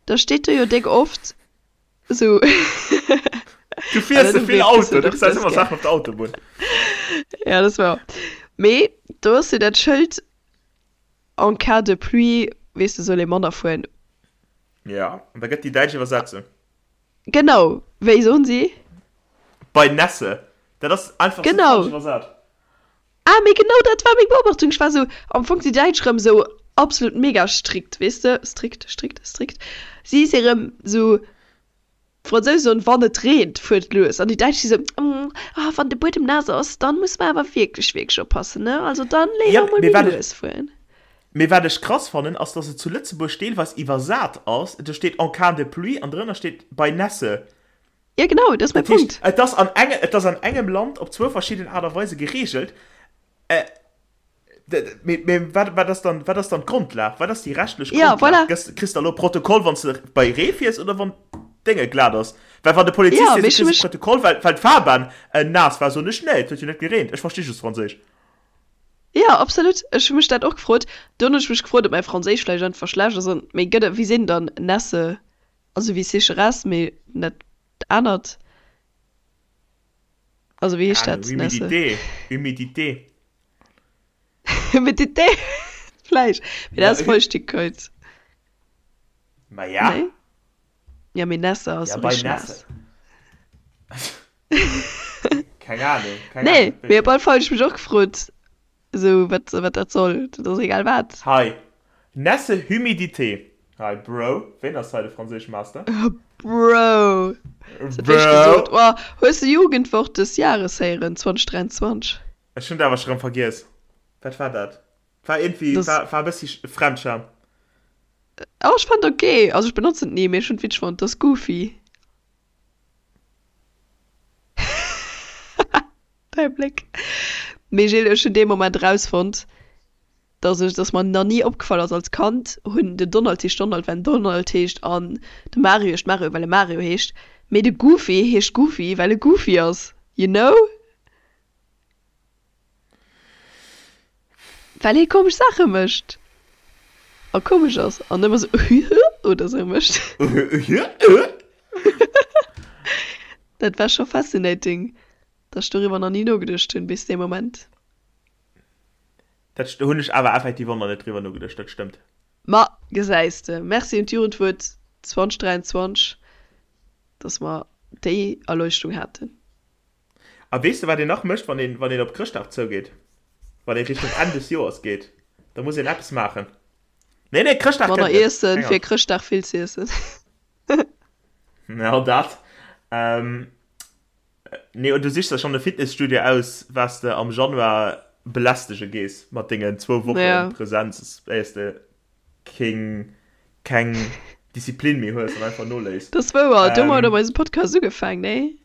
[SPEAKER 3] da steet do jo déck oft esou.
[SPEAKER 2] Du fiers ze vill Auto, du gesäis ëmmer Saachen op der Autobunn.
[SPEAKER 3] Ja, dat ass wouer. Mee do ass jo dat Schëld, En cas de pluie, weess de, soll ee manner fueren.
[SPEAKER 2] Ja, an da gëtt déi däitsch Iwwersetzung.
[SPEAKER 3] Genau, wéi soen si?
[SPEAKER 2] Bei Nässe. Dat ass einfach sou falsch iwwersat.
[SPEAKER 3] Ah, mee genau dat war meng Beobachtung. Ech war sou, am Fong si Däitsch rëm sou absolut mega strikt, weess de, strikt, strikt, strikt. Si si rëm sou, d'Fransousen soen, wann et reent, fuert lues. An déi Däitsch si sou, ah, wann de Buedem naass ass, dann muss mer awer wierklech, wierklech oppassen, ne, also dann
[SPEAKER 2] Ja,
[SPEAKER 3] léiwer mol
[SPEAKER 2] mee
[SPEAKER 3] méi
[SPEAKER 2] wat ech,
[SPEAKER 3] lues fueren.
[SPEAKER 2] mee wat ech krass fannen, ass, dass et zu Lëtzebuerg deelweis iwwersat ass, do steet en cas de pluie an drënner steet bei Nässe.
[SPEAKER 3] Ja, genau, dat ass mäi
[SPEAKER 2] Dat heescht,
[SPEAKER 3] Punkt.
[SPEAKER 2] et ass an enge, et ass an engem Land op zwou verschidden Aart a Weise geregelt. Äh, mee, mee wat, wat ass dann, wat ass dann d'Grondlag? Wat ass déi rechtlech
[SPEAKER 3] Ja,
[SPEAKER 2] Grondlag?
[SPEAKER 3] voilà.
[SPEAKER 2] Gëss, kriss de elo Protokoll, wann s de bei Ree fiers oder wann d'Dénge glat ass? Well wann de Polizist
[SPEAKER 3] Ja,
[SPEAKER 2] seet,
[SPEAKER 3] mee
[SPEAKER 2] du
[SPEAKER 3] ech hu
[SPEAKER 2] kriss e
[SPEAKER 3] mech.
[SPEAKER 2] Protokoll, well, well d'Fahrbahn äh, naass war, soen ech, nee, et huet jo net gereent, ech versti just Franséisch.
[SPEAKER 3] Ja, absolut. Ech hu mech dat och gefrot. Dunn hunn ech mech gefrot, ob mäi Franséisch vläicht einfach schlecht ass an, mee gëtt et, wéi sinn dann Nässe Also wéi Sécheresse, mee net anert. Also wéi heescht dat, Nässe?
[SPEAKER 2] Humidité, Humidité.
[SPEAKER 3] Humidité, vläicht. Mee dat ass Feuchtigkeit.
[SPEAKER 2] Ma ja.
[SPEAKER 3] Nee? Ja, mee Nässe ass
[SPEAKER 2] Ja,
[SPEAKER 3] sou
[SPEAKER 2] bei
[SPEAKER 3] richteg
[SPEAKER 2] Nässe.
[SPEAKER 3] naass.
[SPEAKER 2] Keng Ahnung, keng
[SPEAKER 3] Nee,
[SPEAKER 2] Ahnung.
[SPEAKER 3] mee op alle Fall hunn ech mech och gefrot, Esou, wat, wat dat soll, dat ass egal wat.
[SPEAKER 2] Hei, Nässe Humidité. Hei, Bro, ween ass hei de Franséischmaster?
[SPEAKER 3] Bro, hues dat wéinst
[SPEAKER 2] Bro!
[SPEAKER 3] gesot? Oh, hues de Jugendwort des Jahres héieren, 2023?
[SPEAKER 2] Ech hunn dat awer scho rëm vergiess. Wat war dat? War iergendwéi,
[SPEAKER 3] Das,
[SPEAKER 2] war, war e bëssi Fremdscham.
[SPEAKER 3] oh, ech fand ok. Also ech benotzen et ni, mee ech hunn et witzeg fonnt. Dat ass goofy. Däi Bléck. Mee Gilles, ech hunn dee Moment erausfonnt, dass ech, dass mer nach ni opgefall ass, als Kand hunn den Donald heescht Donald, well en Donald heescht an de Mario heescht Mario, well e Mario heescht, mee de Goofy heescht Goofy, well e Goofy ass, you know? Well hie komesch Saache mécht. A komesch ass an ëmmer sou oder sou mécht. Dat war scho fascinating, dass ech doriwwer nach ni nogeduecht hunn bis dee Moment.
[SPEAKER 2] Dat hunn ech awer effektiv och nach net driwwer nogeduecht, dat stëmmt.
[SPEAKER 3] Ma gesäis de, Merci un d'Jugendwuert 2023, dass mer déi Erleuchtung haten.
[SPEAKER 2] A weess de wat een nach mécht, wann een, wann een op Chrëschtdag zougeet? Wann ee Richtung Enn des Joers geet, da muss een eppes maachen. Nee, nee, Chrëschtdag
[SPEAKER 3] Manner
[SPEAKER 2] kënnt net.
[SPEAKER 3] iessen,
[SPEAKER 2] Keng
[SPEAKER 3] fir
[SPEAKER 2] Angscht.
[SPEAKER 3] Chrëschtdag vill z'iessen.
[SPEAKER 2] Ja, dat. Ähm, nee, und du sichs der schonn e Fitnesstudio aus, wat s de am Januar belästege gees mat dengen zwou Woche
[SPEAKER 3] Ja.
[SPEAKER 2] Präsenz, éiers de keng, keng Disziplin méi hues an einfach noléiss.
[SPEAKER 3] Dat ass wouer, domat
[SPEAKER 2] Ähm,
[SPEAKER 3] hu mer eise Podcast ugefaang, nee?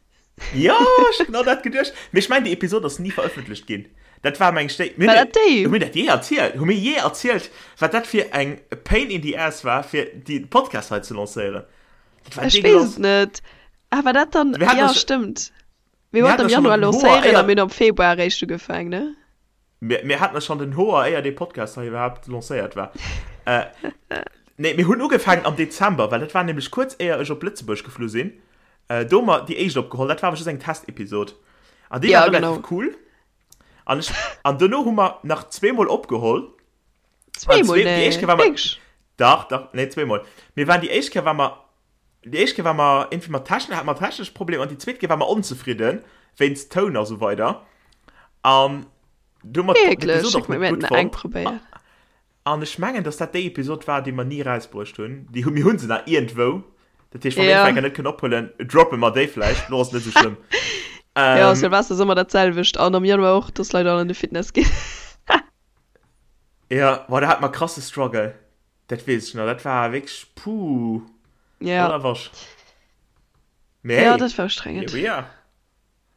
[SPEAKER 2] Jo, ech hu genau dat geduecht. Mee ech mengen, déi Episod ass ni verëffentlecht ginn. Dat war, meng ech, déi. Mir
[SPEAKER 3] War
[SPEAKER 2] hunn
[SPEAKER 3] dat déi?
[SPEAKER 2] Hu mir dat jee erzielt? Hu mir jee erzielt, wat dat fir eng Pain in the ass war, fir déi Podcast hei ze lancéieren? Dat war
[SPEAKER 3] Ech weess
[SPEAKER 2] degueulass.
[SPEAKER 3] et net. Ah, war dat dann.
[SPEAKER 2] Mir haten
[SPEAKER 3] Jo,
[SPEAKER 2] eis.
[SPEAKER 3] stëmmt. Mir
[SPEAKER 2] Mir
[SPEAKER 3] wollten
[SPEAKER 2] haten
[SPEAKER 3] am
[SPEAKER 2] eis schonn
[SPEAKER 3] Januar
[SPEAKER 2] an den Hoer,
[SPEAKER 3] lancéieren a
[SPEAKER 2] éier.
[SPEAKER 3] mir hunn am Februar eréischt ugefaang, ne?
[SPEAKER 2] Mir, mir haten eis schonn den Hoer, éier dee Podcast hei iwwerhaapt lancéiert war. Äh, nee, mir hunn ugefaangen am Dezember, well dat war nämlech kuerz éier ech op Lëtzebuerg geflu sinn. Äh, do hu mer déi éischt opgeholl, dat war awer just eng Testepisod. An déi
[SPEAKER 3] Ja,
[SPEAKER 2] war relativ
[SPEAKER 3] genau.
[SPEAKER 2] cool. An ech, an dono hu mer nach zweemol opgeholl. An
[SPEAKER 3] Zweemol?
[SPEAKER 2] zwee, déi éischt
[SPEAKER 3] Nee,
[SPEAKER 2] Kéier war mer,
[SPEAKER 3] wierklech?
[SPEAKER 2] dach, dach, nee, zweemol. Mir waren déi éischt Kéier war mer, déi éischt Kéier war mer irgendwie mat Technik, hate mer technesch Problemer an déi zweet Kéier war mer onzefridden wéinst Toun a sou weider. An du hu mer
[SPEAKER 3] Wierklech?
[SPEAKER 2] d'Episod
[SPEAKER 3] Schéck
[SPEAKER 2] och
[SPEAKER 3] mir,
[SPEAKER 2] net
[SPEAKER 3] mir
[SPEAKER 2] gutt
[SPEAKER 3] hätten eng
[SPEAKER 2] fonnt.
[SPEAKER 3] probéiert.
[SPEAKER 2] An ech mengen, dass dat déi Episod war, déi mer ni erausbruecht hunn. Déi hu, mir hu se nach iergendwou. Dat heescht, wa mir
[SPEAKER 3] Ja.
[SPEAKER 2] eng Kéier net kënnen ophuelen, droppe mer déi vläicht. Lo ass et net esou schlëmm.
[SPEAKER 3] Ja,
[SPEAKER 2] Ähm,
[SPEAKER 3] Silvester ass ëmmer dat selwecht. An am Januar och, dass Leit all an de Fitness ginn.
[SPEAKER 2] ja, boah, da hat mer krasse Struggle. Dat weess ech nach. Dat war wierklech, puh,
[SPEAKER 3] Ja.
[SPEAKER 2] voller Wasch. Mee
[SPEAKER 3] Ja,
[SPEAKER 2] hey,
[SPEAKER 3] dat war
[SPEAKER 2] here
[SPEAKER 3] ustrengend.
[SPEAKER 2] we are.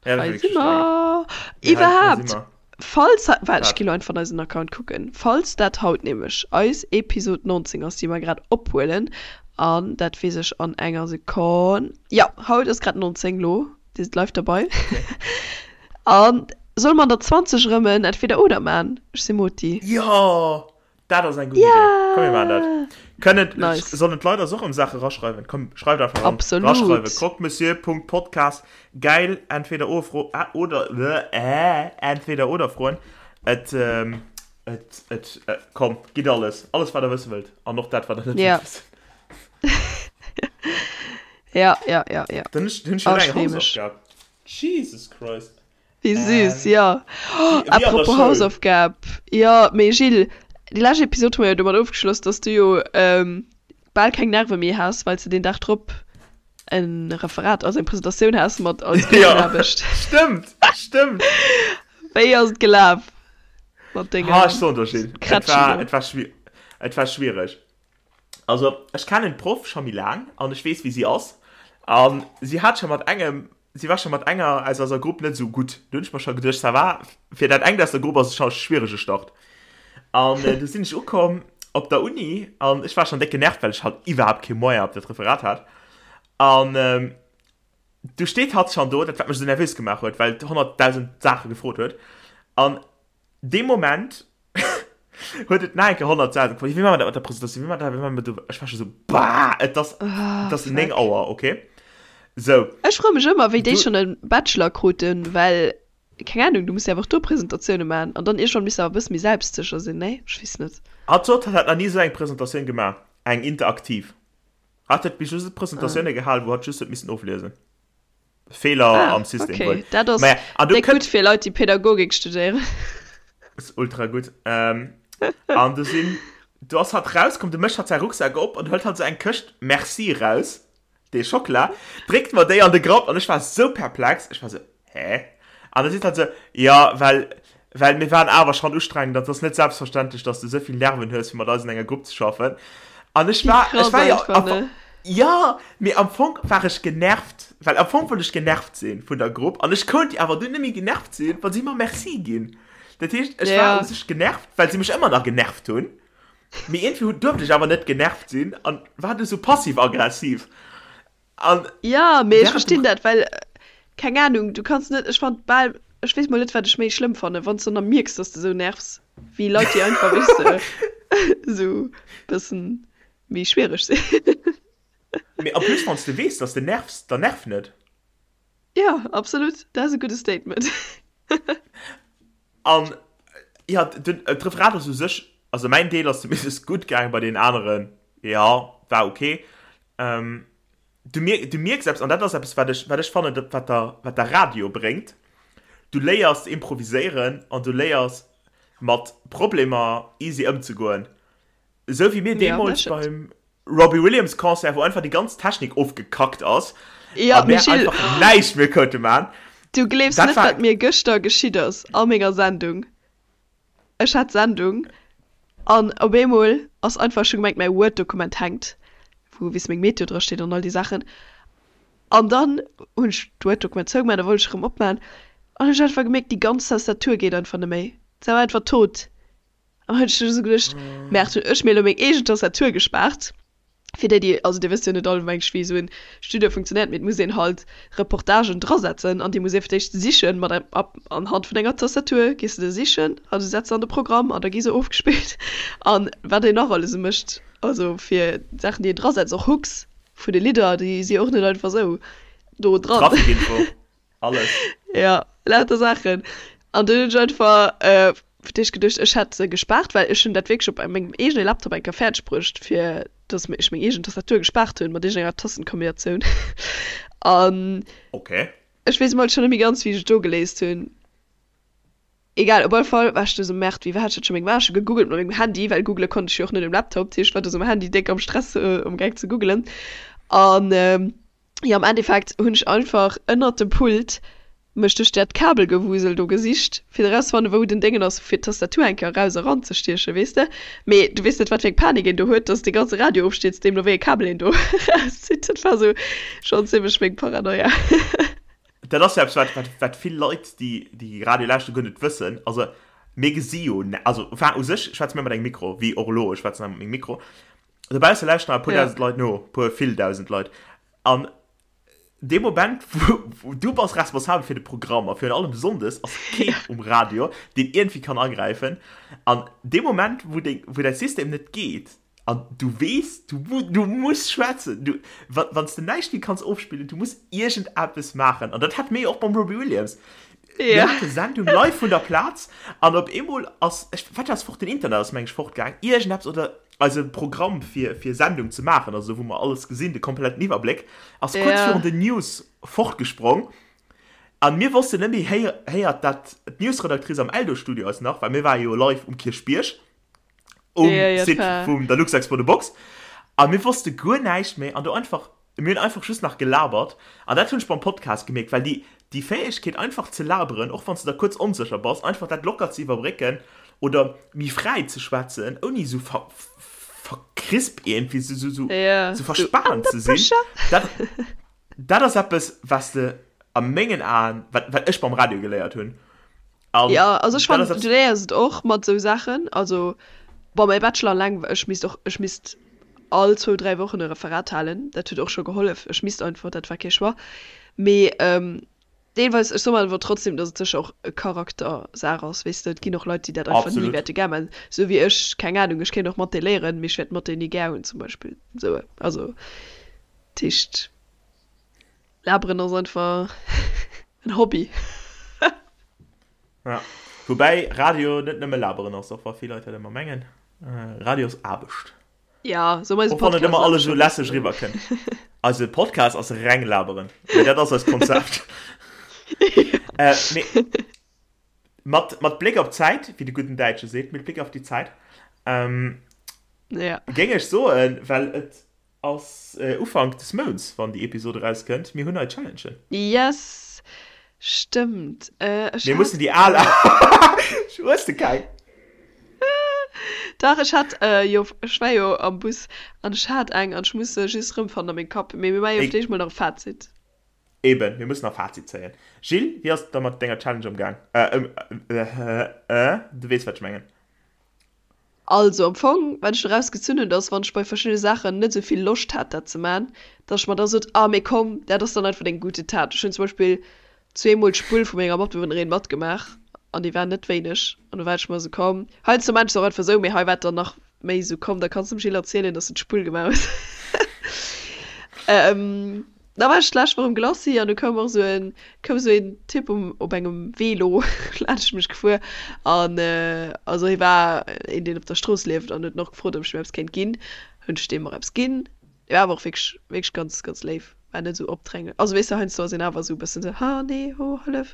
[SPEAKER 2] Ja, dat war
[SPEAKER 3] Hei
[SPEAKER 2] wierklech
[SPEAKER 3] si
[SPEAKER 2] ustrengend.
[SPEAKER 3] mer.
[SPEAKER 2] Mee hei, hei si
[SPEAKER 3] Iwwerhaapt,
[SPEAKER 2] mer.
[SPEAKER 3] falls, waart, ech
[SPEAKER 2] Wat?
[SPEAKER 3] gi lo einfach an eisen Account kucken, falls dat haut nämlech eis Episod 19 ass, déi mer grad ophuelen, an dat weess ech an enger Sekonn, jo, haut ass grad 19 lo, dir sidd live derbei,
[SPEAKER 2] Okay.
[SPEAKER 3] an solle mer an der 20 erëm en Entweder-oder man? Ech si Moti.
[SPEAKER 2] Jo! Dat ass eng gutt Idee. Komm mir maachen dat.
[SPEAKER 3] Yeah!
[SPEAKER 2] Kënnen,
[SPEAKER 3] Nice.
[SPEAKER 2] sollen d'Leit eis och ëm Saache raschreiwen? Komm, schreift einfach ran.
[SPEAKER 3] Absolut.
[SPEAKER 2] Raschreiwen. Croque-monsieur.podcast. Geil. Entweder oder Fro äh, oder äh, entweder oder Froen. Et, ähm, et, et, äh, komm, gitt alles. Alles, wat der wësse wëllt. An och dat, wat der net
[SPEAKER 3] Ja.
[SPEAKER 2] wëllt wëssen.
[SPEAKER 3] Ja, ja, ja, ja.
[SPEAKER 2] Dann hunn ech, hunn ech
[SPEAKER 3] Oh,
[SPEAKER 2] jo
[SPEAKER 3] ech
[SPEAKER 2] eng
[SPEAKER 3] free mech.
[SPEAKER 2] Hausaufgab. Jesus Christ.
[SPEAKER 3] Wéi süß,
[SPEAKER 2] Ähm,
[SPEAKER 3] ja. Oh,
[SPEAKER 2] wéi, wéi an der
[SPEAKER 3] apropos
[SPEAKER 2] Schoul.
[SPEAKER 3] Hausaufgab. Jo, mee Gilles, déi lescht Episod hu mer jo domat ofgeschloss, dass du jo ähm, bal keng Nerve méi has, well s de deen Dag drop en Referat, also eng Presentatioun has mat als
[SPEAKER 2] Ja,
[SPEAKER 3] Gruppenaarbecht.
[SPEAKER 2] stëmmt, stëmmt.
[SPEAKER 3] Wéi ass et gelaf mat
[SPEAKER 2] Ha,
[SPEAKER 3] dengem
[SPEAKER 2] ech soen der, Gilles, et
[SPEAKER 3] Krätschen
[SPEAKER 2] war,
[SPEAKER 3] do?
[SPEAKER 2] et war schwi-, et war schwiereg. Also, ech kennen d'Proff scho méi laang an ech weess, wéi si ass. An si hat scho mat engem, si war scho mat enger aus eiser Grupp net esou gutt. Do hunn ech mer scho geduecht, ça va, fir dat engt aus der Grupp ass et scho e schwierege Start. An du sinn ech ukomm op der Uni an ech war schonn déck genervt, well ech halt iwwerhaapt kee Moyen op dat Referat hat. An du steet hatt schonn do, dat wat mech esou nervös gemaach huet, well et 100.000 Saache gefrot huet. An dee Moment huet et nach eng Kéier 100 Säiten gefrot, wéi maache mer dat mat der Presentatioun, wéi maache mer dat, wéi maache mer dat, ech war scho sou, bah, et ass, et ass 9 Auer, okay, sou.
[SPEAKER 3] Ech froe mech ëmmer, wéi déi
[SPEAKER 2] Du.
[SPEAKER 3] schonn e Bachelor kruten, well, keng Ahnung, du muss jo awer och do Presentatioune maachen an dann iergendwann misst de awer e bësse méi selbstsécher sinn, nee? Ech weess net.
[SPEAKER 2] Hatt sot, hatt hätt nach ni esou eng Presentatioun gemaach, eng interaktiv. Hatt huet bis just Presentatioune gehalen, wou hatt just huet missen ofliesen. Feeler
[SPEAKER 3] Ah,
[SPEAKER 2] am System
[SPEAKER 3] okay.
[SPEAKER 2] wuel.
[SPEAKER 3] Dat ass
[SPEAKER 2] Maja, an du
[SPEAKER 3] déck
[SPEAKER 2] kënnt.
[SPEAKER 3] gutt fir Leit, déi Pädagogik studéieren.
[SPEAKER 2] Ass ultra gutt. Ähm, an du sinn, du ass hatt rauskomm, du mécht hatt säi Rucksak op an hëlt hatt sou eng Këscht Merci raus, dee Schockela, dréckt mer déi an de Grapp an ech war sou perplex, ech war sou, hä? An da seet hatt sou, jo, well, well mir waren awer schonn ustrengend an et ass net selbstverständlech, dass du souvill Nerven hues, fir mat eis an enger Grupp ze schaffen. An ech
[SPEAKER 3] Wéi
[SPEAKER 2] war, ech
[SPEAKER 3] krass
[SPEAKER 2] war jo
[SPEAKER 3] einfach,
[SPEAKER 2] am
[SPEAKER 3] ne?
[SPEAKER 2] Jo, mee am Fong war ech genervt, well am Fong wollt ech genervt sinn vun der Grupp an ech konnt awer dunn net méi genervt sinn, wa si mer Merci ginn. Dat heescht, ech war
[SPEAKER 3] Ja.
[SPEAKER 2] u sech genervt, well si mech ëmmer nach genervt hunn, mee iergendwéi hunn, duerft ech awer net genervt sinn an war du sou passiv-aggressiv. An
[SPEAKER 3] Ja, mee ech
[SPEAKER 2] während dem
[SPEAKER 3] verstinn dat, well, keng Ahnung, du kanns net, ech fand bal, ech weess mol net, wat ech méi schlëmm fannen, wann s du dann mierks, dass de sou nervs, wéi Leit, déi einfach, weess de. Esou bëssen méi schwiereg sinn.
[SPEAKER 2] Mee en plus wann s de weess, dass de nervs, dann nerv net.
[SPEAKER 3] Jo, absolut, dat ass e gudde Statement.
[SPEAKER 2] An jo, den d'Referat ass u sech, also mäin Deel ass zumindest gutt gaangen, bei deenen aneren, jo, war ok. Du mier, du mierks eppes, an dat ass eppes, wat ech, wat ech fannen, dat wat der, wat der Radio bréngt, du léiers ze improviséieren an du léiers mat Problemer easy ëmzegoen. Esou wéi mir
[SPEAKER 3] Ja, dat
[SPEAKER 2] deemools
[SPEAKER 3] stëmmt.
[SPEAKER 2] beim Robbie Williams Concert, wou einfach déi ganz Technik ofgekackt ass
[SPEAKER 3] Ja,
[SPEAKER 2] a mär
[SPEAKER 3] Gilles,
[SPEAKER 2] einfach näischt méi konnte man.
[SPEAKER 3] du gleefs
[SPEAKER 2] Dat
[SPEAKER 3] net,
[SPEAKER 2] war
[SPEAKER 3] wat mir gëschter geschitt ass a menger Sendung. Ech hat Sendung an op eemol ass einfach, ech hu gemengt mäi Word-Dokument hänkt, wou weess meng Meteo dra steet an all déi Saachen. An dann hunn ech d'Word-Dokument zougemaach, da wollt ech erëm opmaachen an hunn ech einfach gemierkt, déi ganz Tastatur geet einfach net méi. Se war einfach tot. An hunn ech esou geduecht, Merde, hunn ech mir elo meng eegen Tastatur gespaart. Fir déi, déi, also dir wësst jo net all mensch wéi esou en Studio funktionéiert, mee et muss een halt Reportagen drasetzen an déi muss ee fir d'éischt sichen mat engem App anhand vun enger Tastatur gees de se sichen a du setz se an de Programm an da gi se ofgespillt an wat een nach alles esou mécht, also fir d'Saachen déi een drasetzt, och Hooks vun de Lidder, déi si och net einfach esou do dran.
[SPEAKER 2] Trafikinfo. Alles.
[SPEAKER 3] Ja, lauter Saachen. An dunn hunn ech einfach äh, fir d'éischt geduecht, ech hätt se gespaart, well ech hunn dat wierklech op mengem eegene Laptop eng Kéier fäerdeg bruecht, fir dass ech meng eegen Tastatur gespaart hunn, mat iergendenger Tastenkombinatioun. An
[SPEAKER 2] Okay.
[SPEAKER 3] ech weess emol schonn net méi ganz, wéi ech et do geléist hunn. Egal, op alle Fall war ech du sou, Merde, wéi war dat scho meng war? Ech hu gegoogelt mat mengem Handy, well googele konnt ech jo och net um Laptop, dat heescht, ech war du sou um Handy déck am Stress, amgaang ze googelen. An Jo, am Endeffekt hunn ech einfach ënnert dem Pult mech duerch dat Kabelgewusel do gesicht, fir erauszefannen, wou den Déngen ass, fir d'Tastatur eng Kéier eraus a ranzestiechen, weess de. Mee du weess net, wat fir eng Panik een do huet, dass dee ganze Radio ofstierzt, deemno wéi e Kabel een do erauszitt. Dat war sou schonn zimmlech meng Paranoia.
[SPEAKER 2] Dat ass jo eppes, wat, wat, wat vill Leit, déi, déi Radio lauschteren, guer net wëssen. Also, mir gesi jo, also, enfin, u sech schwätze mir mat engem Mikro, wéi och elo, ech schwätzen hei mat mengem Mikro. Dobausse lauschteren e puer dausend Leit no, puer vill dausend Leit. An dee Moment, wou du bass responsabel fir de Programm a virun allem sonndes ass keen um Radio, deen iergendwéi kann agräifen. An dee Moment, wou deng, wou däi System net geet an du weess, du, du muss schwätzen, du, wa, wann s de näischt méi kanns ofspillen, du muss iergendeppes maachen. An dat hate mir jo och beim Robbie Williams. Mir hate Sendung live vun der Plaz an op eemol ass, ech, wat ass fort, den Internet ass meng ech fortgaang, iergendeppes oder Eise Programm fir fir Sendung ze maachen, also wou mer alles gesinn, de kompletten Iwwerbléck, ass kuerz virun den News fortgesprong an mir wossten net méi, héiert dat d'Newsredactrice am Eldo-Studio eis nach, well mir ware jo live um Kierchbierg um Site vum der Luxexpo The Box a mir wosste guer näischt méi an do einfach Mir hunn einfach just nach gelabert an dat hunn ech beim Podcast gemierkt, well déi déi Fäegkeet einfach ze laberen, och wann s de da kuerz onsécher bass, einfach dat locker ze iwwerbrécken oder méi fräi ze schwätzen, ouni esou ver verkrisp iergendwéi esou esou esou
[SPEAKER 3] Ja,
[SPEAKER 2] esou
[SPEAKER 3] sou
[SPEAKER 2] verspaant
[SPEAKER 3] under
[SPEAKER 2] ze sinn,
[SPEAKER 3] pressure.
[SPEAKER 2] dat dat ass eppes, wat s de a mengen Aen, wat wat ech beim Radio geléiert hunn. An
[SPEAKER 3] Ja, also ech
[SPEAKER 2] dat ass
[SPEAKER 3] fannen, du
[SPEAKER 2] eppes.
[SPEAKER 3] léiers et och mat esou Saachen. Also, bon, mäi Bachelor eleng, ech misst och, ech misst all zwou, dräi Wochen e Referat halen. Dat huet och scho gehollef. Ech misst einfach, dat war kee Choix. Mee deelweis, ech soe mer awer trotzdem, datt et sécher och e Charaktersaach ass, weess de. Et ginn och Leit, déi dat einfach ni
[SPEAKER 2] Absolut.
[SPEAKER 3] wäerte gär maachen. Esou wéi ech, keng Anung, ech kéint och Mathé léieren, mee ech wäert Mathé ni gär hunn zum Beispill. Esou, also, dat heescht. Laberen ass einfach en Hobby.
[SPEAKER 2] Ja. Woubäi Radio net nëmme laberen ass, och wa vill Leit dat ëmmer mengen. Radio ass Aarbecht.
[SPEAKER 3] Ja, sou eise
[SPEAKER 2] Och wann net
[SPEAKER 3] Podcast
[SPEAKER 2] ëmmer
[SPEAKER 3] ass
[SPEAKER 2] alles
[SPEAKER 3] scho
[SPEAKER 2] esou
[SPEAKER 3] e
[SPEAKER 2] lässeg
[SPEAKER 3] bëssen.
[SPEAKER 2] eriwwerkënnt. Eise Podcast ass reng laberen. Mee dat ass eist Konzept. Äh, mee mat, mat Bléck op d'Zäit, wéi de gudden Däitsche seet, mit Blick auf die Zeit, ähm,
[SPEAKER 3] Ja.
[SPEAKER 2] géing ech soen, well et Ass Ufank des Mounts wann déi Episode erauskënnt. Mir hunn nei Challengen.
[SPEAKER 3] Yes! Stëmmt. Ech
[SPEAKER 2] Mir
[SPEAKER 3] hat.
[SPEAKER 2] mussen déi al. Hues de keng?
[SPEAKER 3] Dach, ech hat jo, ech war jo am Bus an ech hat eng an ech muss se just erëmfannen a mengem Kapp. Mee mir maache jo fir d'éischt mol nach e Fazit.
[SPEAKER 2] Eben, mir mussen nach Fazit zéien. Gilles, wéi ass et da mat denger Challenge ëmgaang? Ëm, du weess wat ech mengen.
[SPEAKER 3] Also am Fong, wat ech doraus gezunn hunn, dass wann ech bei verschiddene Saachen net esou vill Loscht hat dat ze man, dass ech mer da sot, ah mee komm, dat ass dann einfach deng gute Tat. Ech hunn zum Beispill zweemol d'Spull vu menger Matbewunnerin matgemaach an déi war net wéineg an do war ech mer esou, komm, heiansdo man ech se och einfach esou, mee hei war et dann nach. méi esou, komm, da kanns de dem Gilles erzielen, dass de d'Spull gemaach hues. Ähm, da war ech d'lescht Woch um Glacis an du koum och esou en, koum esou een Typ um, op engem Velo laanscht mech gefuer an also hie war een, deen op der Strooss lieft an huet en och gefrot, ob ech him eppes kéint ginn. Hunn ech deem och eppes ginn. Hie war awer och wierklech, wierklech ganz, ganz léif, war net esou opdränglech. Also weess de, heiansdo ass een awer esou e bëssen esou, ha nee, ho, hëllef,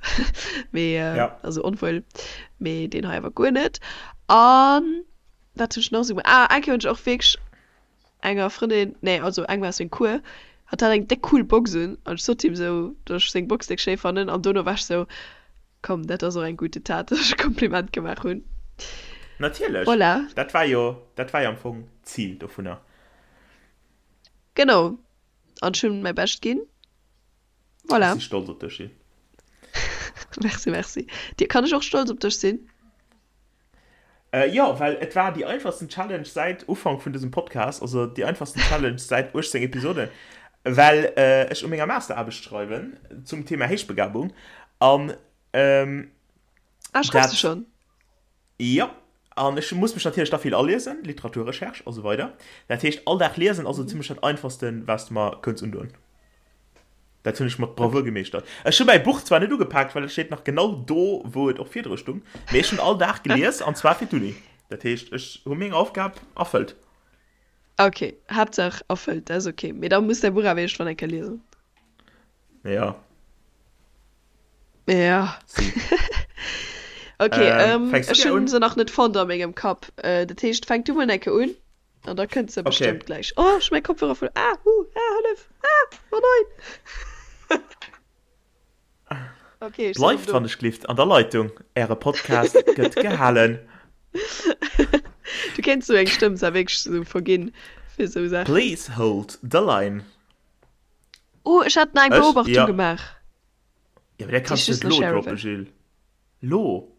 [SPEAKER 3] mee also onwuel, mee deen hei awer guer net. An wat hunn ech nach esou gemaach? Ah, eng Kéier hunn ech och wierklech enger Frëndin, nee, also engem aus sengem Cours, hatt hat eng déck cool Box un an ech sot him esou, datt ech seng Box déck schéi fannen an dono war ech esou, komm, dat ass och eng gute Tat, datt ech e Kompliment gemaach hunn.
[SPEAKER 2] Natierlech,
[SPEAKER 3] Voilà.
[SPEAKER 2] dat war jo, dat war jo am Fong d'Zil dovunner.
[SPEAKER 3] Genau, an ech hunn mäi Bescht ginn. Voilà.
[SPEAKER 2] Ech si stolz op dech, Jill.
[SPEAKER 3] Merci, merci. Dir, kann ech och stolz op dech sinn?
[SPEAKER 2] Jo, well et war déi einfachsten Challenge säit Ufank vun dësem Podcast, also déi einfachsten Challenge säit 18 Episoden, well ech u menger Masteraarbecht schreiwen zum Thema Héichbegabung an
[SPEAKER 3] Ah, schreifs du schonn?
[SPEAKER 2] Jo, an ech muss mech natierlech da vill aliesen, Literaturrecherche a sou weider. Dat heescht, all Dag liesen ass esou zimmlech dat Einfachsten, wat s de mer kënns undoen. Dat hunn ech mat Bravour gemeeschtert. Ech hu mäi Buch zwar net ugepaakt, well et steet nach genau do, wou et och virdru stung, mee ech hunn all Dag gelies, an zwar fir d'Uni. Dat heescht, ech hu meng Aufgab erfëllt.
[SPEAKER 3] Ok, Haaptsaach erfëllt, dat ass ok. Mee da muss däi Buch awer iergendwann eng Kéier liesen.
[SPEAKER 2] Ja.
[SPEAKER 3] Ja.
[SPEAKER 2] Si.
[SPEAKER 3] Ok,
[SPEAKER 2] Ähm, fänks du
[SPEAKER 3] ech
[SPEAKER 2] gär
[SPEAKER 3] hunn
[SPEAKER 2] un?
[SPEAKER 3] se nach net fonnt a mengem Kapp. Dat heescht, fänk du mol eng Kéier un an da kënnt se
[SPEAKER 2] Okay.
[SPEAKER 3] bestëmmt gläich. Oh, ech hu mäi Kopfhörer verluer. Ah, huh, ah, hëllef, ah, oh nein. Okay, ech sinn erëm
[SPEAKER 2] Bleift
[SPEAKER 3] do.
[SPEAKER 2] wann ech glift an der Leitung, äre Podcast gëtt gehalen.
[SPEAKER 3] Du kéints sou eng Stëmm zwar wierklech sou verginn fir sou Saachen.
[SPEAKER 2] Please hold the line.
[SPEAKER 3] Oh, ech hat nach eng
[SPEAKER 2] Ech?
[SPEAKER 3] Beobachtung
[SPEAKER 2] Ja.
[SPEAKER 3] gemaach,
[SPEAKER 2] Ja, mee dat
[SPEAKER 3] déi
[SPEAKER 2] kanns
[SPEAKER 3] ech
[SPEAKER 2] du
[SPEAKER 3] just
[SPEAKER 2] net
[SPEAKER 3] nach
[SPEAKER 2] lo
[SPEAKER 3] share
[SPEAKER 2] droppen,
[SPEAKER 3] wëll.
[SPEAKER 2] Jill. Lo!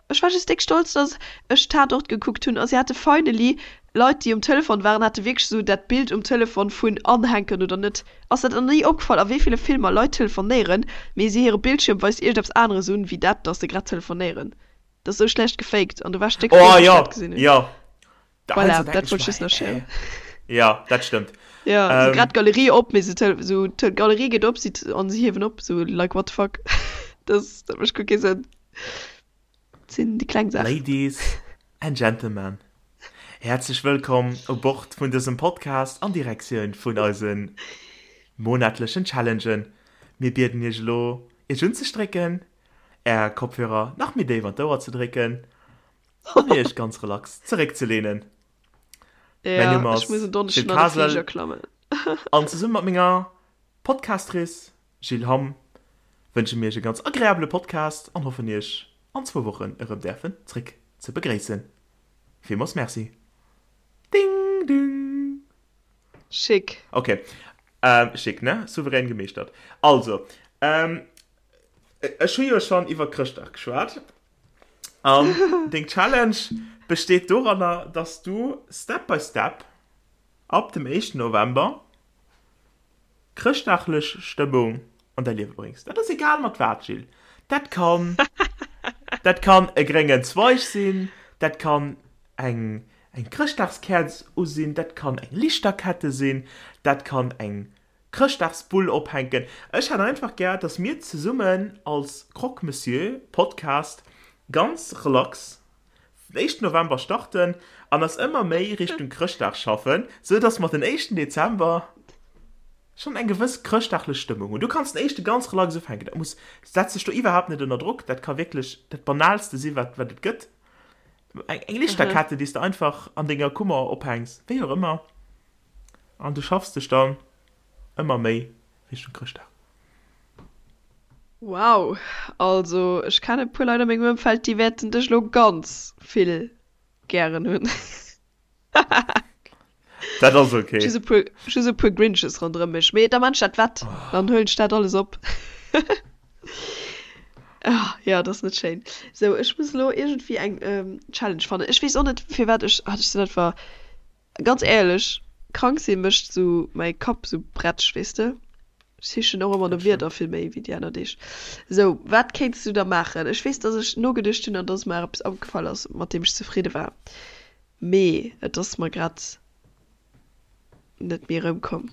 [SPEAKER 3] Ech war just déck stolz, dass ech Tatort gekuckt hunn a si hate finally, Leit déi um Telefon waren, hate wierklech esou dat Bild um Telefon vun anhänken oder net. Ass dat nach ni opgefall a wéi ville Filmer Leit telefonéieren, mee si hire Bildschierm weist iergendeppes aneres un wéi dat, dass se grad telefonéieren. Dat ass esou schlecht gefaked an do war ech déck frou,
[SPEAKER 2] Oh
[SPEAKER 3] wéi ech
[SPEAKER 2] jo,
[SPEAKER 3] dat gesinn hunn.
[SPEAKER 2] jo. Da
[SPEAKER 3] Voilà,
[SPEAKER 2] heiansdo denken
[SPEAKER 3] dat
[SPEAKER 2] ech
[SPEAKER 3] wollt ech
[SPEAKER 2] mer,
[SPEAKER 3] just nach sharen.
[SPEAKER 2] hä? Jo, dat stëmmt.
[SPEAKER 3] Jo, sou
[SPEAKER 2] Ähm,
[SPEAKER 3] grad d'Galerie op, mee se tele sou d'Galerie geet op, si an si hiewen op, sou like what the fuck. Dat dat mécht guer kee Sënn. Dat sinn déi kleng Saachen.
[SPEAKER 2] Ladies and Gentlemen, häerzlech wëllkomm u Bord vun dësem Podcast an Direktioun vun eise monatlechen Challengen. Mir bieden iech elo, iech unzestrécken, är Kopfhörer nach méi déif an d'Ouer ze drécken an iech ganz relax zeréckzelehnen. Mäin
[SPEAKER 3] Ja,
[SPEAKER 2] Numm
[SPEAKER 3] ech
[SPEAKER 2] ass
[SPEAKER 3] muss en
[SPEAKER 2] Gilles
[SPEAKER 3] Donneschden an de
[SPEAKER 2] Kasel
[SPEAKER 3] Fliger klammen.
[SPEAKER 2] an zesumme mat menger Podcastrice Jill Hamm wënsche mir iech e ganz agreabele Podcast an hoffen iech an zwou Wochen erëm däerfen zréck ze begréissen. Villmools Merci. Ding ding.
[SPEAKER 3] Schick.
[SPEAKER 2] Ok, schick ne? Souverän gemeeschtert. Also, ech hu jo schonn iwwer Chrëschtdag geschwat. An deng Challenge besteet doranner, dass du Step by Step ab dem éischten November chrëschtdaglech Stëmmung an däi Liewe bréngs. Dat ass egal mat wat, Jill. Dat kann, dat kann e gréngen Zweig sinn, dat kann eng, eng Chrëschtdagskäerz u sinn, dat kann eng Lichterkette sinn, dat kann eng Chrëschtdagsbull ophänken. Ech hätt einfach gär, dass mir zesummen als Croque Monsieur Podcast ganz relax den éischten November starten an eis ëmmer méi Richtung Chrëschtdag schaffen, sou dass mer den éischten Dezember schonn eng gewëss chrëschtdaglech Stëmmung hunn. Du kanns den éischte ganz relax ufänken, dat muss, setz dech do iwwerhaapt net ënner Drock, dat ka wierklech dat banalste si wat wat et gëtt, eng eng Lichterkette déi s de einfach an denger Kummer ophänks, wéi och ëmmer. An du schaffs dech dann ëmmer méi Richtung Chrëschtdag.
[SPEAKER 3] Wow, also ech kennen e puer Leit a mengem Ëmfeld, déi wäerten dech elo ganz vill gären hunn.
[SPEAKER 2] Dat ass ok.
[SPEAKER 3] Just e puer, just e puer Grinches ronderëm mech, mee da man ech dat wett, dann huelen ech dat alles op. Ah, jo, dat ass net schéin. Sou, ech muss elo iergendwéi eng Challenge fannen. Ech weess och net firwat ech, ah ech sinn einfach. Ganz éierlech, krank sinn mécht sou mäi Kapp sou bretsch, weess de. Ech sichen och ëmmer no Wierder vill méi wéi déi aner Deeg. Sou, wat kéints du da maachen? Ech weess, dass ech nogeduecht hunn an dass mer eppes opgefall ass, mat deem ech zefridde war. Mee et ass mer grad net méi erëmkomm.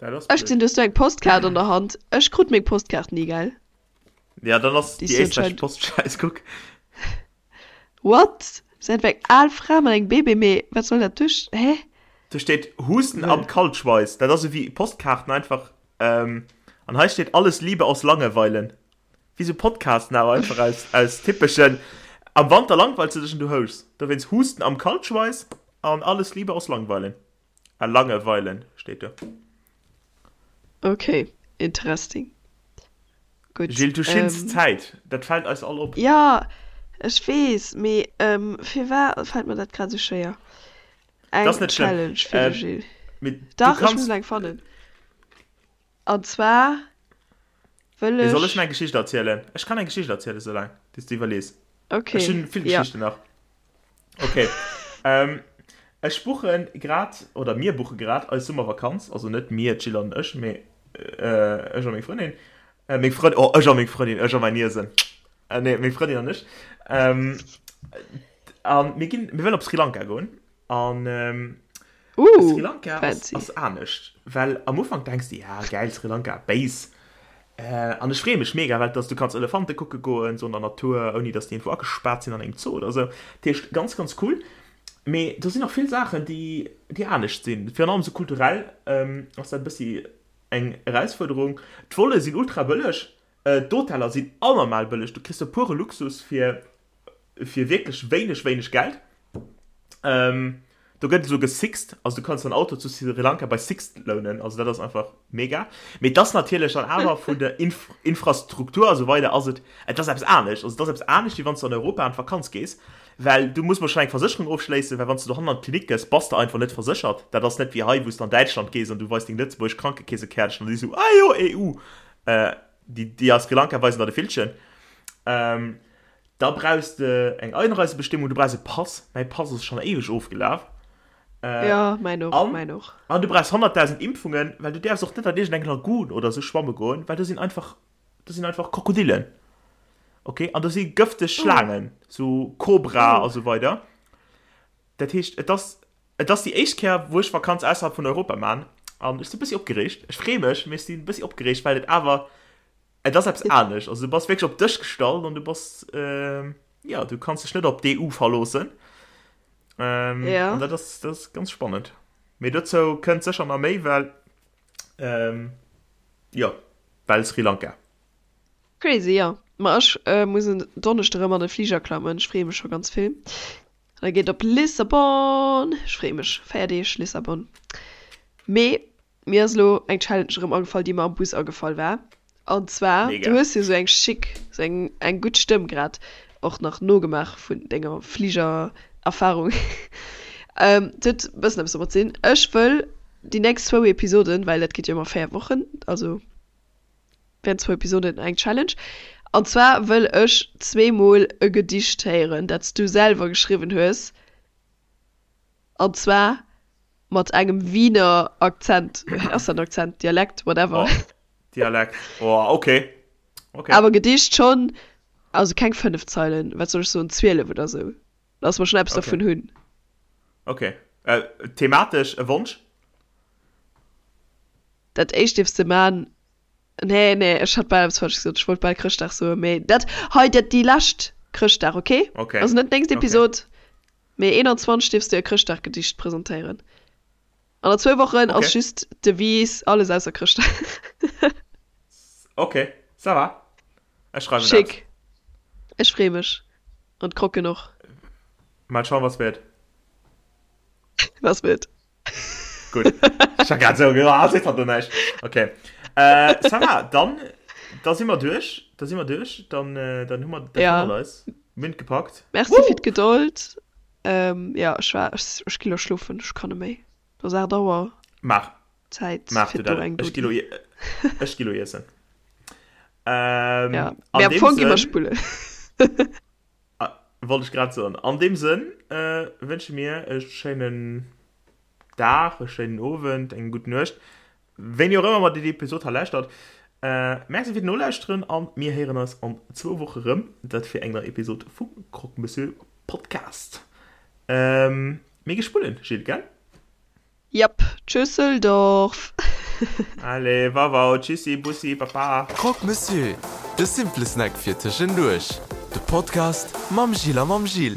[SPEAKER 2] Dat ass
[SPEAKER 3] Ech
[SPEAKER 2] blöd.
[SPEAKER 3] gesinn, du hues do eng Postkaart an der Hand. Ech krut meng Postkaart ni, gell?
[SPEAKER 2] Ja, dann ass
[SPEAKER 3] Déi
[SPEAKER 2] déi
[SPEAKER 3] ass jo
[SPEAKER 2] éisträichesch
[SPEAKER 3] anscheinend.
[SPEAKER 2] Post schäiss, kuck.
[SPEAKER 3] What? Säit eng al Fra mat engem Bébé, mee wat soll dat duerch, hä?
[SPEAKER 2] Do steet Husten
[SPEAKER 3] Wëll.
[SPEAKER 2] am Kaltschweiss. Dat ass esou wéi Postkaarten einfach. Ähm, an hei steet Alles Liebe aus Langeweilen. Wéi sou Podcasten awer einfach aus, aus typeschen Am Wanter langweilst du dech an du houschs. Dowéinst Husten am Kaltschweiss an Alles Liebe aus Langweilen. Ah, Langeweilen steet do.
[SPEAKER 3] Ok, interesting. Gutt.
[SPEAKER 2] Jill, du schinns
[SPEAKER 3] Ähm,
[SPEAKER 2] Zäit. Dat fält eis all op.
[SPEAKER 3] jo, ech weess, mee ähm, firwat fält mer dat grad esou schwéier?
[SPEAKER 2] Dat ass
[SPEAKER 3] Eng
[SPEAKER 2] net schlëmm.
[SPEAKER 3] Challenge fir de
[SPEAKER 2] Ähm,
[SPEAKER 3] Gilles.
[SPEAKER 2] mee du
[SPEAKER 3] Dach, ech
[SPEAKER 2] kanns.
[SPEAKER 3] muss eng fannen. An zwar wëll
[SPEAKER 2] Mee soll ech
[SPEAKER 3] ech.
[SPEAKER 2] meng Geschicht erzielen? Ech kann eng Geschicht erzielen, soulaang bis du iwwerlees. Ech
[SPEAKER 3] Okay,
[SPEAKER 2] hunn vill
[SPEAKER 3] ja.
[SPEAKER 2] Geschichten nach. Okay. Ähm, ech buchen grad, oder mir buche grad eis Summervakanz. Also net mir, d'Jill an ech, mee äh, ech a meng Frëndin. Äh, meng Frëndin, oh, ech a meng Frëndin, ech a mäin Iesen. Äh, nee, meng Frëndin an ech. Ähm, an mir ginn, mir wëllen op Sri Lanka goen. An ähm,
[SPEAKER 3] Uh,
[SPEAKER 2] Sri Lanka ass,
[SPEAKER 3] fancy.
[SPEAKER 2] ass anescht, well am Ufank denks de, ja gäil, Sri Lanka, béis. Äh, an ech freeë mech mega, well dass du kanns Elefante kucke goen, sou an der Natur, ouni dass déi iergendwou agespaart sinn an engem Zoo oder sou. Dat heescht, ganz, ganz cool. Mee do sinn och vill Saachen, déi, déi anescht sinn. Virun allem sou kulturell ähm, ass dat e bëssi eng Erausfuerderung. D'Volle sinn ultra bëlleg, äh, d'Hoteller sinn anormal bëlleg, du kriss do pure Luxus fir fir wierklech wéineg, wéineg Geld. Ähm, do gëtt esou gesixt, also du kanns dein Auto zu Sri Lanka bei Sixt lounen, also dat ass einfach mega. Mee et ass natierlech dann awer vun der Inf Infrastruktur a sou weider ass et, et ass eppes anescht. Also et ass eppes anescht, wéi wann s du an Europa an d'Vakanz gees, well du muss mol schonn eng Versécherung ofschléissen, well wann s du dohannen an d'Klinik gëss, bass de einfach net verséchert. Dat ass net wéi hei, wou s du an Däitschland gees an du weis deng lëtzebuergesch Krankekeesekäertchen an déi sou, ah jo, EU. Äh, déi, déi a Sri Lanka weisen der de Villchen. Ähm, Da brauchs de eng Einreisebestimmung, du brauchs e Pass, mäi Pass ass schonn éiweg ofgelaf.
[SPEAKER 3] Ja, mäin och,
[SPEAKER 2] An,
[SPEAKER 3] mäin och.
[SPEAKER 2] an du brauchs 100.000 Impfungen, well du däerfs och net an iergendeng Lagoon oder sou schwamme goen, well do sinn einfach, do sinn einfach Krokodillen, ok, an do si gëfteg
[SPEAKER 3] Oh.
[SPEAKER 2] Schlaangen, sou Kobra
[SPEAKER 3] Oh.
[SPEAKER 2] a sou weider. Dat heescht, et ass, et ass déi éischt Kéier, wou ech Vakanz ausserhalb vun Europa man an ech si bëssi opgereegt. Ech free mech, mee ech si bëssi opgereegt, well et awer Et ass eppes anescht. Also du bass wierklech op dech gestallt an du bass, jo, du kanns dech net op d'EU verloossen. Ähm,
[SPEAKER 3] Ja.
[SPEAKER 2] An dat ass, dat ass ganz spannend. Mee dozou kënnt sécher nach méi, well, ähm, jo, well Sri Lanka.
[SPEAKER 3] Crazy, jo. Ma ech muss en Donneschde rëm an de Fliger klammen. Ech freeë mech scho ganz vill. An da geet et op Lissabon. Ech freeë mech. 4 Deeg Lissabon. Mee Mir ass elo eng Challenge erëm agefall, déi mer am Bus agefall war. An zwar, du
[SPEAKER 2] Mega.
[SPEAKER 3] hues jo sou eng schick, sou eng, eng gutt Stëmm grad och nach nogemaach vun denger Fligererfahrung. Et huet e bëssen eppes domat ze dinn. Ech wëll déi nächst zwou Episoden, well dat geet jo ëmmer 4 Wochen, also während zwou Episoden eng Challenge. An zwar wëll ech zweemol e Gedicht héieren, dat s du selwer geschriwwen hues. An zwar mat engem Wiener Akzent. Ass dat en Akzent? Dialekt? Whatever.
[SPEAKER 2] Oh, Dialekt. Oh, okay. Okay.
[SPEAKER 3] Awer Gedicht schonn, also keng 5 Zeilen, wat soll ech soen, 12 oder sou. Dass mer schonn eppes
[SPEAKER 2] Okay.
[SPEAKER 3] dervun hunn.
[SPEAKER 2] Okay. Äh, thematesch e Wonsch?
[SPEAKER 3] Dat éischt dierfs de man. Nee, nee, ech hat bal eppes falsch gesot. Ech wollt bal Chrëschtdag soen, mee dat hei, dat déi lescht Chrëschtdag, okay?
[SPEAKER 2] Okay.
[SPEAKER 3] Also net d'nächst
[SPEAKER 2] Okay.
[SPEAKER 3] Episod, Mee 21 dierfs du e Chrëschtdaggedicht presentéieren. An an zwou Wochen ass
[SPEAKER 2] Okay.
[SPEAKER 3] just d'Devise alles ausser Chrëschtdag.
[SPEAKER 2] Okay, ça va. Ech schreiwen dat.
[SPEAKER 3] Schick. Ech free mech. An d'Krocken och.
[SPEAKER 2] Mal schauen, was wird.
[SPEAKER 3] Was wird.
[SPEAKER 2] Gutt. Ech war grad esou, ah, seet hatt do näischt. Okay. Äh, ça va, dann, da si mer duerch. Da si mer duerch. Dann, äh, dann hu mer dat
[SPEAKER 3] Ja.
[SPEAKER 2] hannert eis. Mir hunn et gepackt.
[SPEAKER 3] Merci
[SPEAKER 2] Woo!
[SPEAKER 3] fir d'Gedold. Ähm, ja, ech war, ech, ech gi lo schlofen, ech kann net méi. Et ass 8 Auer.
[SPEAKER 2] Maach.
[SPEAKER 3] Zäit
[SPEAKER 2] Maach
[SPEAKER 3] fir
[SPEAKER 2] du dat.
[SPEAKER 3] do eng
[SPEAKER 2] Ech gi lo,
[SPEAKER 3] Dodi.
[SPEAKER 2] ech gi lo iessen. Ähm,
[SPEAKER 3] Ja,
[SPEAKER 2] an
[SPEAKER 3] mee am
[SPEAKER 2] deem
[SPEAKER 3] Fong gi mer
[SPEAKER 2] Sënn,
[SPEAKER 3] spullen.
[SPEAKER 2] Wollt ech grad soen. An deem Sënn wënsche mir e schéinen Dag, e schéinen Owend, eng gutt Nuecht, wéini och ëmmer mer déi Episod hei lauschtert. Merci fir d'Nolauschteren a mir héieren eis an zwou Woche rëm, dat fir eng nei Episod vum Croque Monsieur Podcast. Mir gi spullen, Jill, gell?
[SPEAKER 3] Jep, Tschüsseldorf!
[SPEAKER 2] Allez, wauwau, tschüssi, bussi, baba!
[SPEAKER 1] Croque Monsieur, de simple Snack fir tëschenduerch. De Podcast mam Gilles a mam Jill.